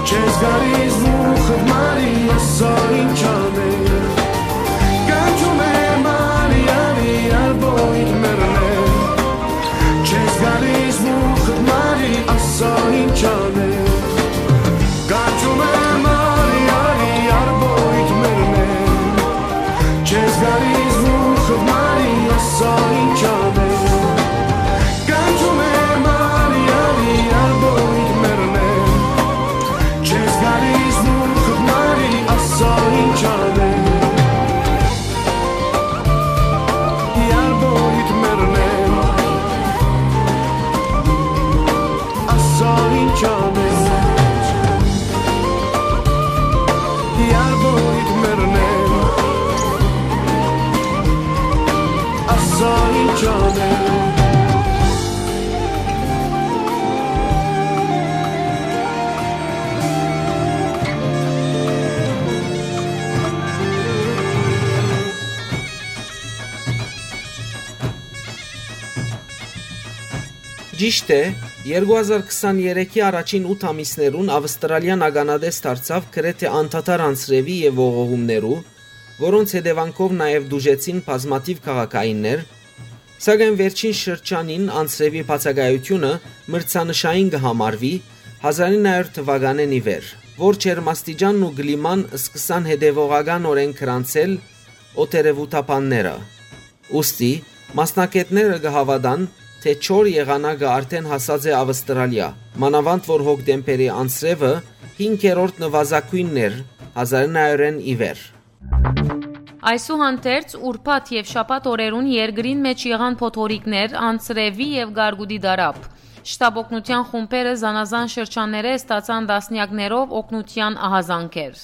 չես գալիս մուխդ մարի, ասա ինչ անե, կանչում է մարի, արի, արբոյդ մերմե, չես գալիս մուխդ մարի, ասա ինչ անե, կանչում է մարի, արի, արբոյդ մերմե, չես գալիս մուխդ մարի, ասա ինչ անե, կանչում է մարի, արի, արբոյդ մերմե, չես գալիս մուխդ մարի, ասա ինչ անե, արբոյդ մերմե, ասա ինչ անե, արբոյդ մերմե, ասա ինչ անե։ Ճիշդ է, երկու հազար քսաներեքի առաջին ութ ամիսներուն Ավստրալիան ականատես դարձաւ գրեթէ անդադար անձրեւի եւ ողողումներու, որոնց հետեւանքով նաեւ տուժեցին բազմաթիւ քաղաքայիններ, սակայն վերջին շրջանին անձրեւի բացակայութիւնը մրցանշային կը համարուի հազարինը հարիւր թուականէն ի վեր, որ ջերմաստիճանն ու կլիման սկսան հետեւողականօրէն գրանցել օտերեւութաբանները։ Ուստի, մասնագէտները կը հաւատան, թէ չոր եղանակը արդէն հասած է Ավստրալիա, մանաւանդ որ հոկտեմբերի անձրեւը հինգերորդ նուազագոյնն էր հազարինը հարիւրէն ի վեր։ Այսուհանդերձ, ուրբաթ եւ շաբաթ օրերուն երկրին մէջ եղան փոթորիկներ, անձրեւի եւ կարկուտի տարափ։ Շտապօգնութեան խումբերը զանազան շրջաններէ ստացան տասնեակներով օգնութեան ահազանգեր։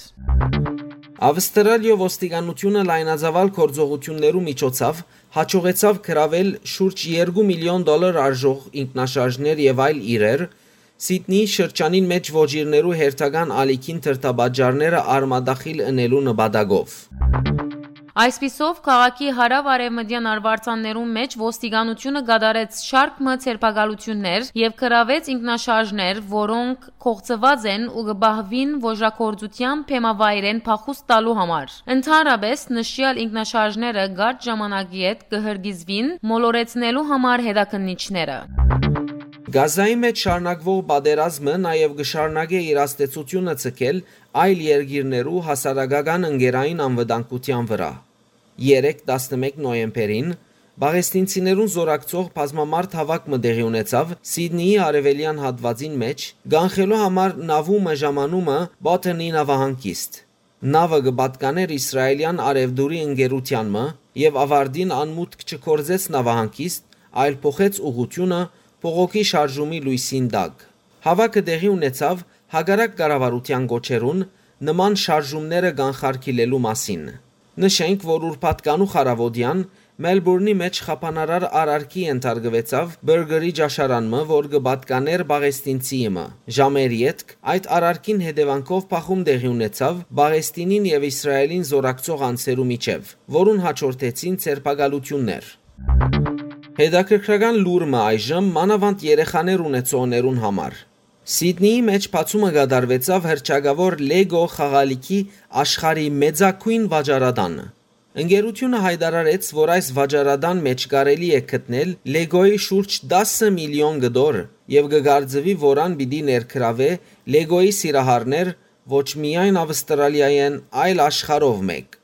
Ավստրալիոյ ոստիկանութիւնը լայնածաւալ գործողութիւններու միջոցով յաջողեցաւ գրաւել շուրջ երկու միլիոն դոլար արժող ինքնաշարժներ եւ այլ իրեր, Սիդնիի շրջանին մէջ ոճիրներու հերթական ալիքին դրդապատճառները արմատախիլ ընելու նպատակով։ Այսպիսով, քաղաքի հարաւ-արեւմտեան արուարձաններուն մէջ ոստիկանութիւնը կատարեց շարք մը ձերբակալութիւններ եւ գրաւեց ինքնաշարժներ, որոնք կոխցուած են ու կը պահուին ոճրագործութեան բեմավայրէն փախուստ տալու համար։ Ընդհանրապէս, նշեալ ինքնաշարժները կարճ ժամանակի հետ կը հրկիզուին մոլորեցնելու համար հետաքննիչները։ Գազայի մէջ շարունակուող պատերազմը նաեւ կը շարունակէ իր ազդեցութիւնը ձգել այլ երկիրներու հասարակական ընկերային անվտանգութեան վրայ։ Երեկ, տասնմէկ նոյեմբերին, պաղեստինցիներուն զօրակցող բազմամարդ հաւաք մը տեղի ունեցաւ Սիդնիի արեւելեան հատուածին մէջ, կանխելու համար նաւու մը ժամանումը Բոթենի նաւահանգիստ։ Նաւը կը պատկանէր իսրայելեան արեւտուրի ընկերութեան մը եւ աւարտին անմուտք չգործեց նաւահանգիստ, այլ փոխեց ուղղութիւնը բողոքի շարժումի լոյսին տակ։ Հաւաքը տեղի ունեցաւ հակառակ կառավարութեան կոչերուն նման շարժումները կանխարգիլելու մասին։ Նշենք, որ ուրբաթ կանուխ առաւօտեան Մելբուրնի մէջ խափանարար արարքի ենթարկուեցաւ Բըրգերի ճաշարան մը, որ կը պատկանէր պաղեստինցի մը։ Ժամեր ետք այդ արարքին հետեւանքով բախում տեղի ունեցաւ Պաղեստինին եւ Իսրայելին զօրակցող անձերու միջեւ, որուն յաջորդեցին ձերբակալութիւններ։ Հետաքրքրական լուր մը այժմ, մանաւանդ երեխաներ ունեցողներուն համար։ Սիդնիի մէջ բացումը կատարուեցաւ հռչակաւոր Lego խաղալիքի աշխարհի մեծագոյն վաճառատանը։ Ընկերութիւնը յայտարարեց, որ այս վաճառատան մէջ կարելի է գտնել Lego-ի շուրջ տասը միլիոն կտոր եւ կը կարծուի, որ ան պիտի ներգրաւէ Lego-ի սիրահարներ ոչ միայն Ավստրալիայէն, այլ աշխարհով մէկ։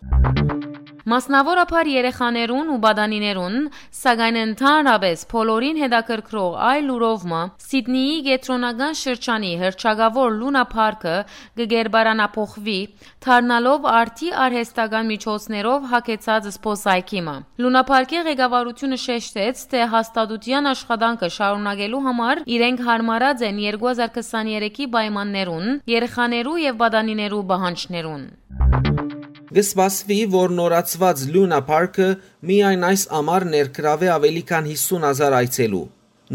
Մասնաւորաբար երեխաներուն ու պատանիներուն, սակայն ընդհանրապէս բոլորին հետաքրքրող այլ լուրով մը, Սիդնիի կեդրոնական շրջանի հռչակաւոր Լունա Փարքը կը կերպարանափոխուի, դառնալով արդի արհեստական միջոցներով յագեցած զբօսայգի մը։ Լունա Փարքի ղեկավարութիւնը շեշտեց, թէ հաստատութեան աշխատանքը շարունակելու համար իրենք յարմարած են երկու հազար քսաներեքի պայմաններուն, երեխաներու եւ պատանիներու պահանջներուն։ Կը սպասուի, որ նորացուած Լունա Փարքը միայն այս ամառ ներգրաւէ աւելի քան յիսուն հազար այցելու։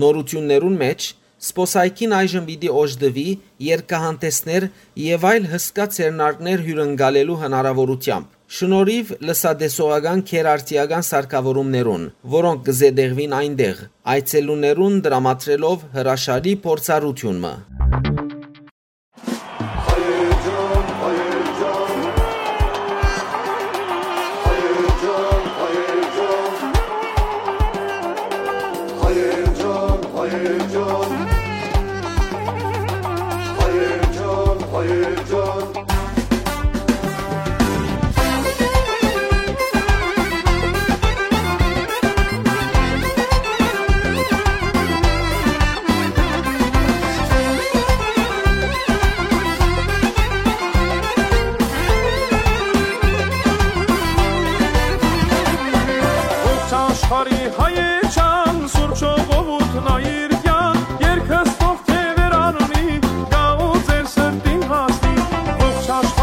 Նորութիւններուն մէջ, զբօսայգին այժմ պիտի օժտուի, երկհանտեսներ եւ այլ հսկայ ձեռնարկներ հիւրընկալելու հնարաւորութեամբ, շնորհիւ լսատեսողական գերարդիական սարքաւորումներուն, որոնք կը զետեղուին այնտեղ, այցելուներուն տրամադրելով հրաշալի փորձառութիւն մը։ Ողջ աշխարհի հայեջան, սուրբ ժողովուրդն այրկյան, երկս թող թեւեր առնի, գա ու ձեր սրտին հասնի, ողջ աշխարհ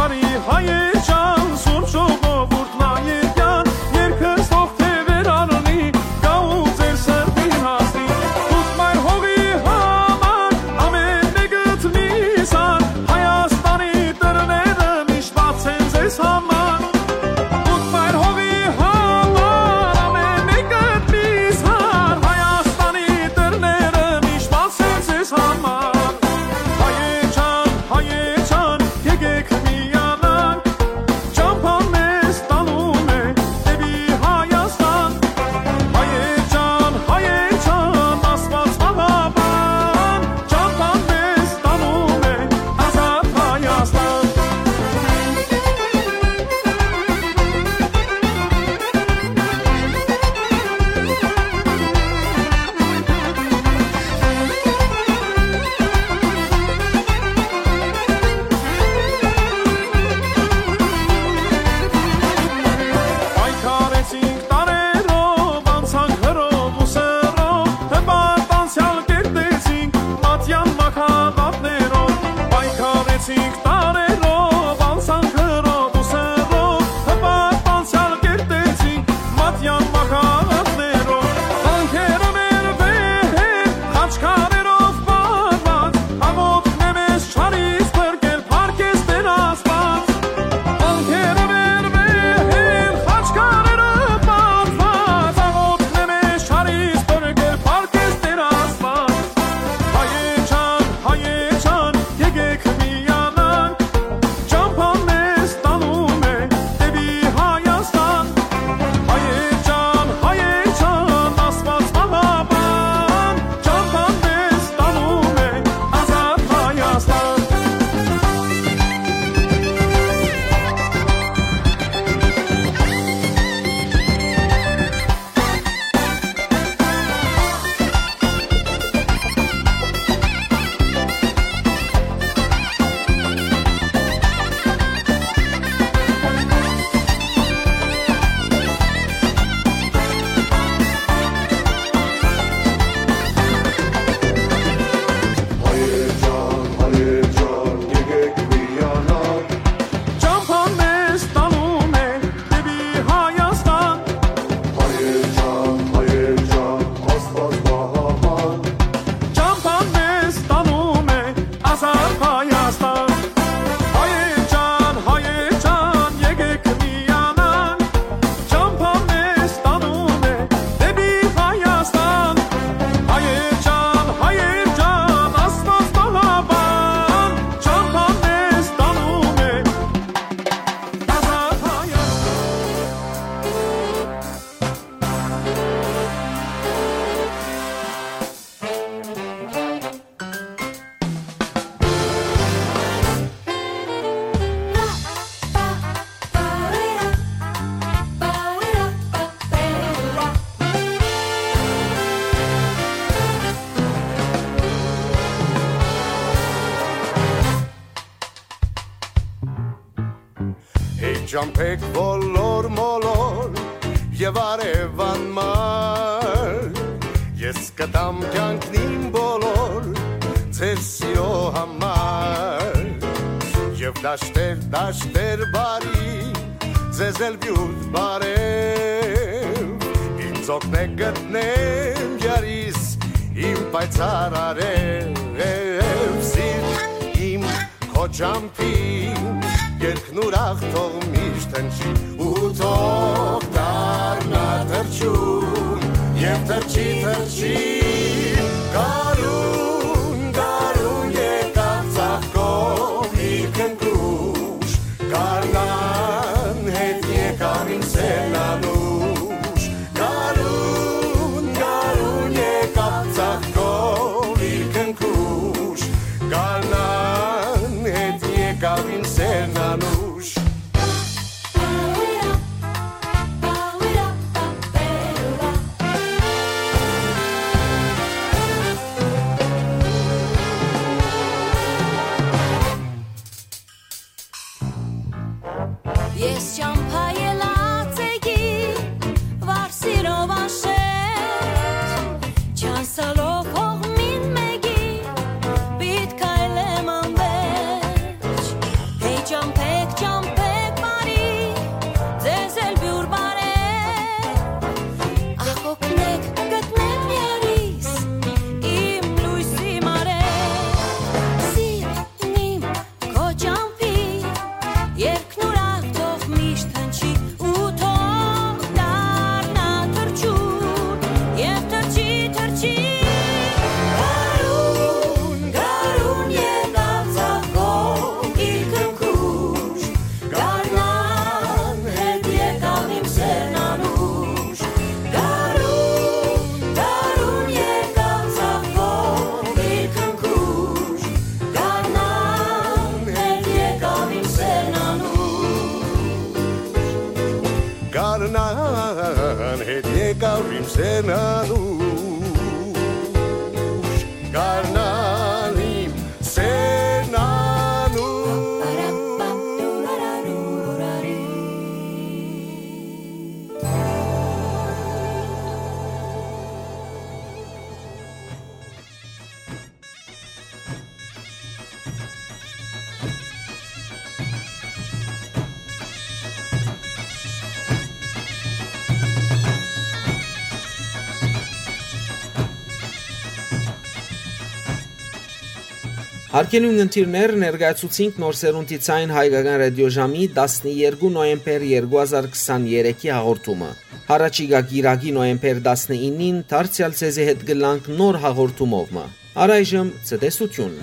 Ճամբեք բոլոր մոլոր եւ արեւան մար, ես կտամ կյանքն իմ բոլոր ձեր սիրո համար։ Եւ դաշտեր, դաշտեր բարի, ձեզ էլ յոյթ բարեւ, ինձ օգնեք գտնեմ գարիս իմ պայծառ արեւ, սիրտ իմ քոճամփին, երկնուրախ թող միշտ հնչի, ու թող դառնա թռչուն, եւ թռչի, թռչի, գարուն, գարուն եկաւ ծաղկող իր քնքուշ, գարնան հետ եկաւ իմ սերն անուշ, գարուն, գարուն եկաւ ծաղկող իր քնքուշ, գարնան հետ եկաւ իմ սերն անուշ։ Ես ճամբայ ելած էի, վար սիրով անշեշտ, չանցալով հողմին մէկի, պիտ քայլեմ անվերջ։ Հեյ ճամբեք, ճամբեք բարի, ձեզ էլ բիւր բարեւ, ախ օգնեք գտնեմ երիս, իմ լոյսի մարեւ, սիրտ իմ քոճամփի, երկնուրախ թող միշտ հնչի, ու թող դառնայ թռչուն, եւ թռչի, թռչի, գարուն, գարուն եկաւ ծաղկող իր քնքուշ, գարնան հետ եկաւ իմ սերն անուշ, գարուն, գարուն եկաւ ծաղկող իր քնքուշ, գարնան հետ եկաւ իմ սերն անուշ։ Գարնան հետ եկաւ իմ սերն անուշ, գարնան իմ սերն անուշ։ Հարգելի ունգընտիրներ, ներկայացուցինք Նոր Սերունդի Ձայն հայկական ռադիոժամի տասներկու նոյեմբեր երկու հազար քսաներեքի հաղորդումը։ Յառաջիկայ կիրակի նոյեմբեր տասնինին դարձեալ ձեզի հետ կ'ըլլանք նոր հաղորդումով մը։ Առայժմ ցտեսութիւն։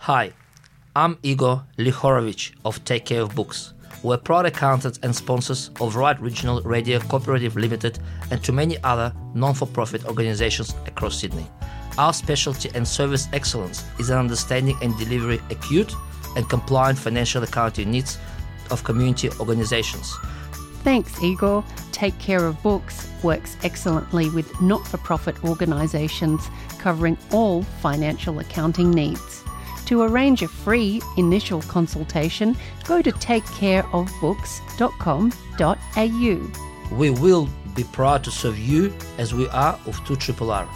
Hi, I'm Igor Lihorovich of Take Care of Books. We're proud accountants and sponsors of Right Regional Radio Cooperative Limited and to many other non-for-profit organizations across Sydney. Our specialty and service excellence is in understanding and delivery acute and compliant financial accounting needs of community organizations. Thanks, Igor. Take Care of Books works excellently with not for profit organisations covering all financial accounting needs. To arrange a free initial consultation, go to take care of books dot com dot a u. We will be proud to serve you as we are of two triple R.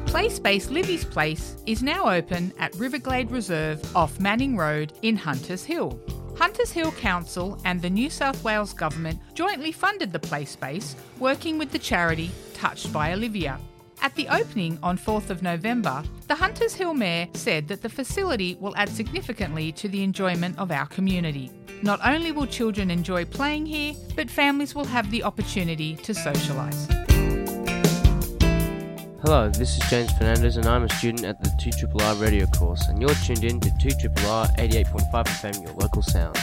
Play Space Livy's Place is now open at Riverglade Reserve off Manning Road in Hunters Hill. Hunters Hill Council and the New South Wales Government jointly funded the play space, working with the charity Touched by Olivia. At the opening on fourth of November, the Hunters Hill Mayor said that the facility will add significantly to the enjoyment of our community. Not only will children enjoy playing here, but families will have the opportunity to socialise. Hello, this is James Fernandez, and I'm a student at the two triple R radio course, and you're tuned in to two triple R eighty-eight point five F M, your local sound.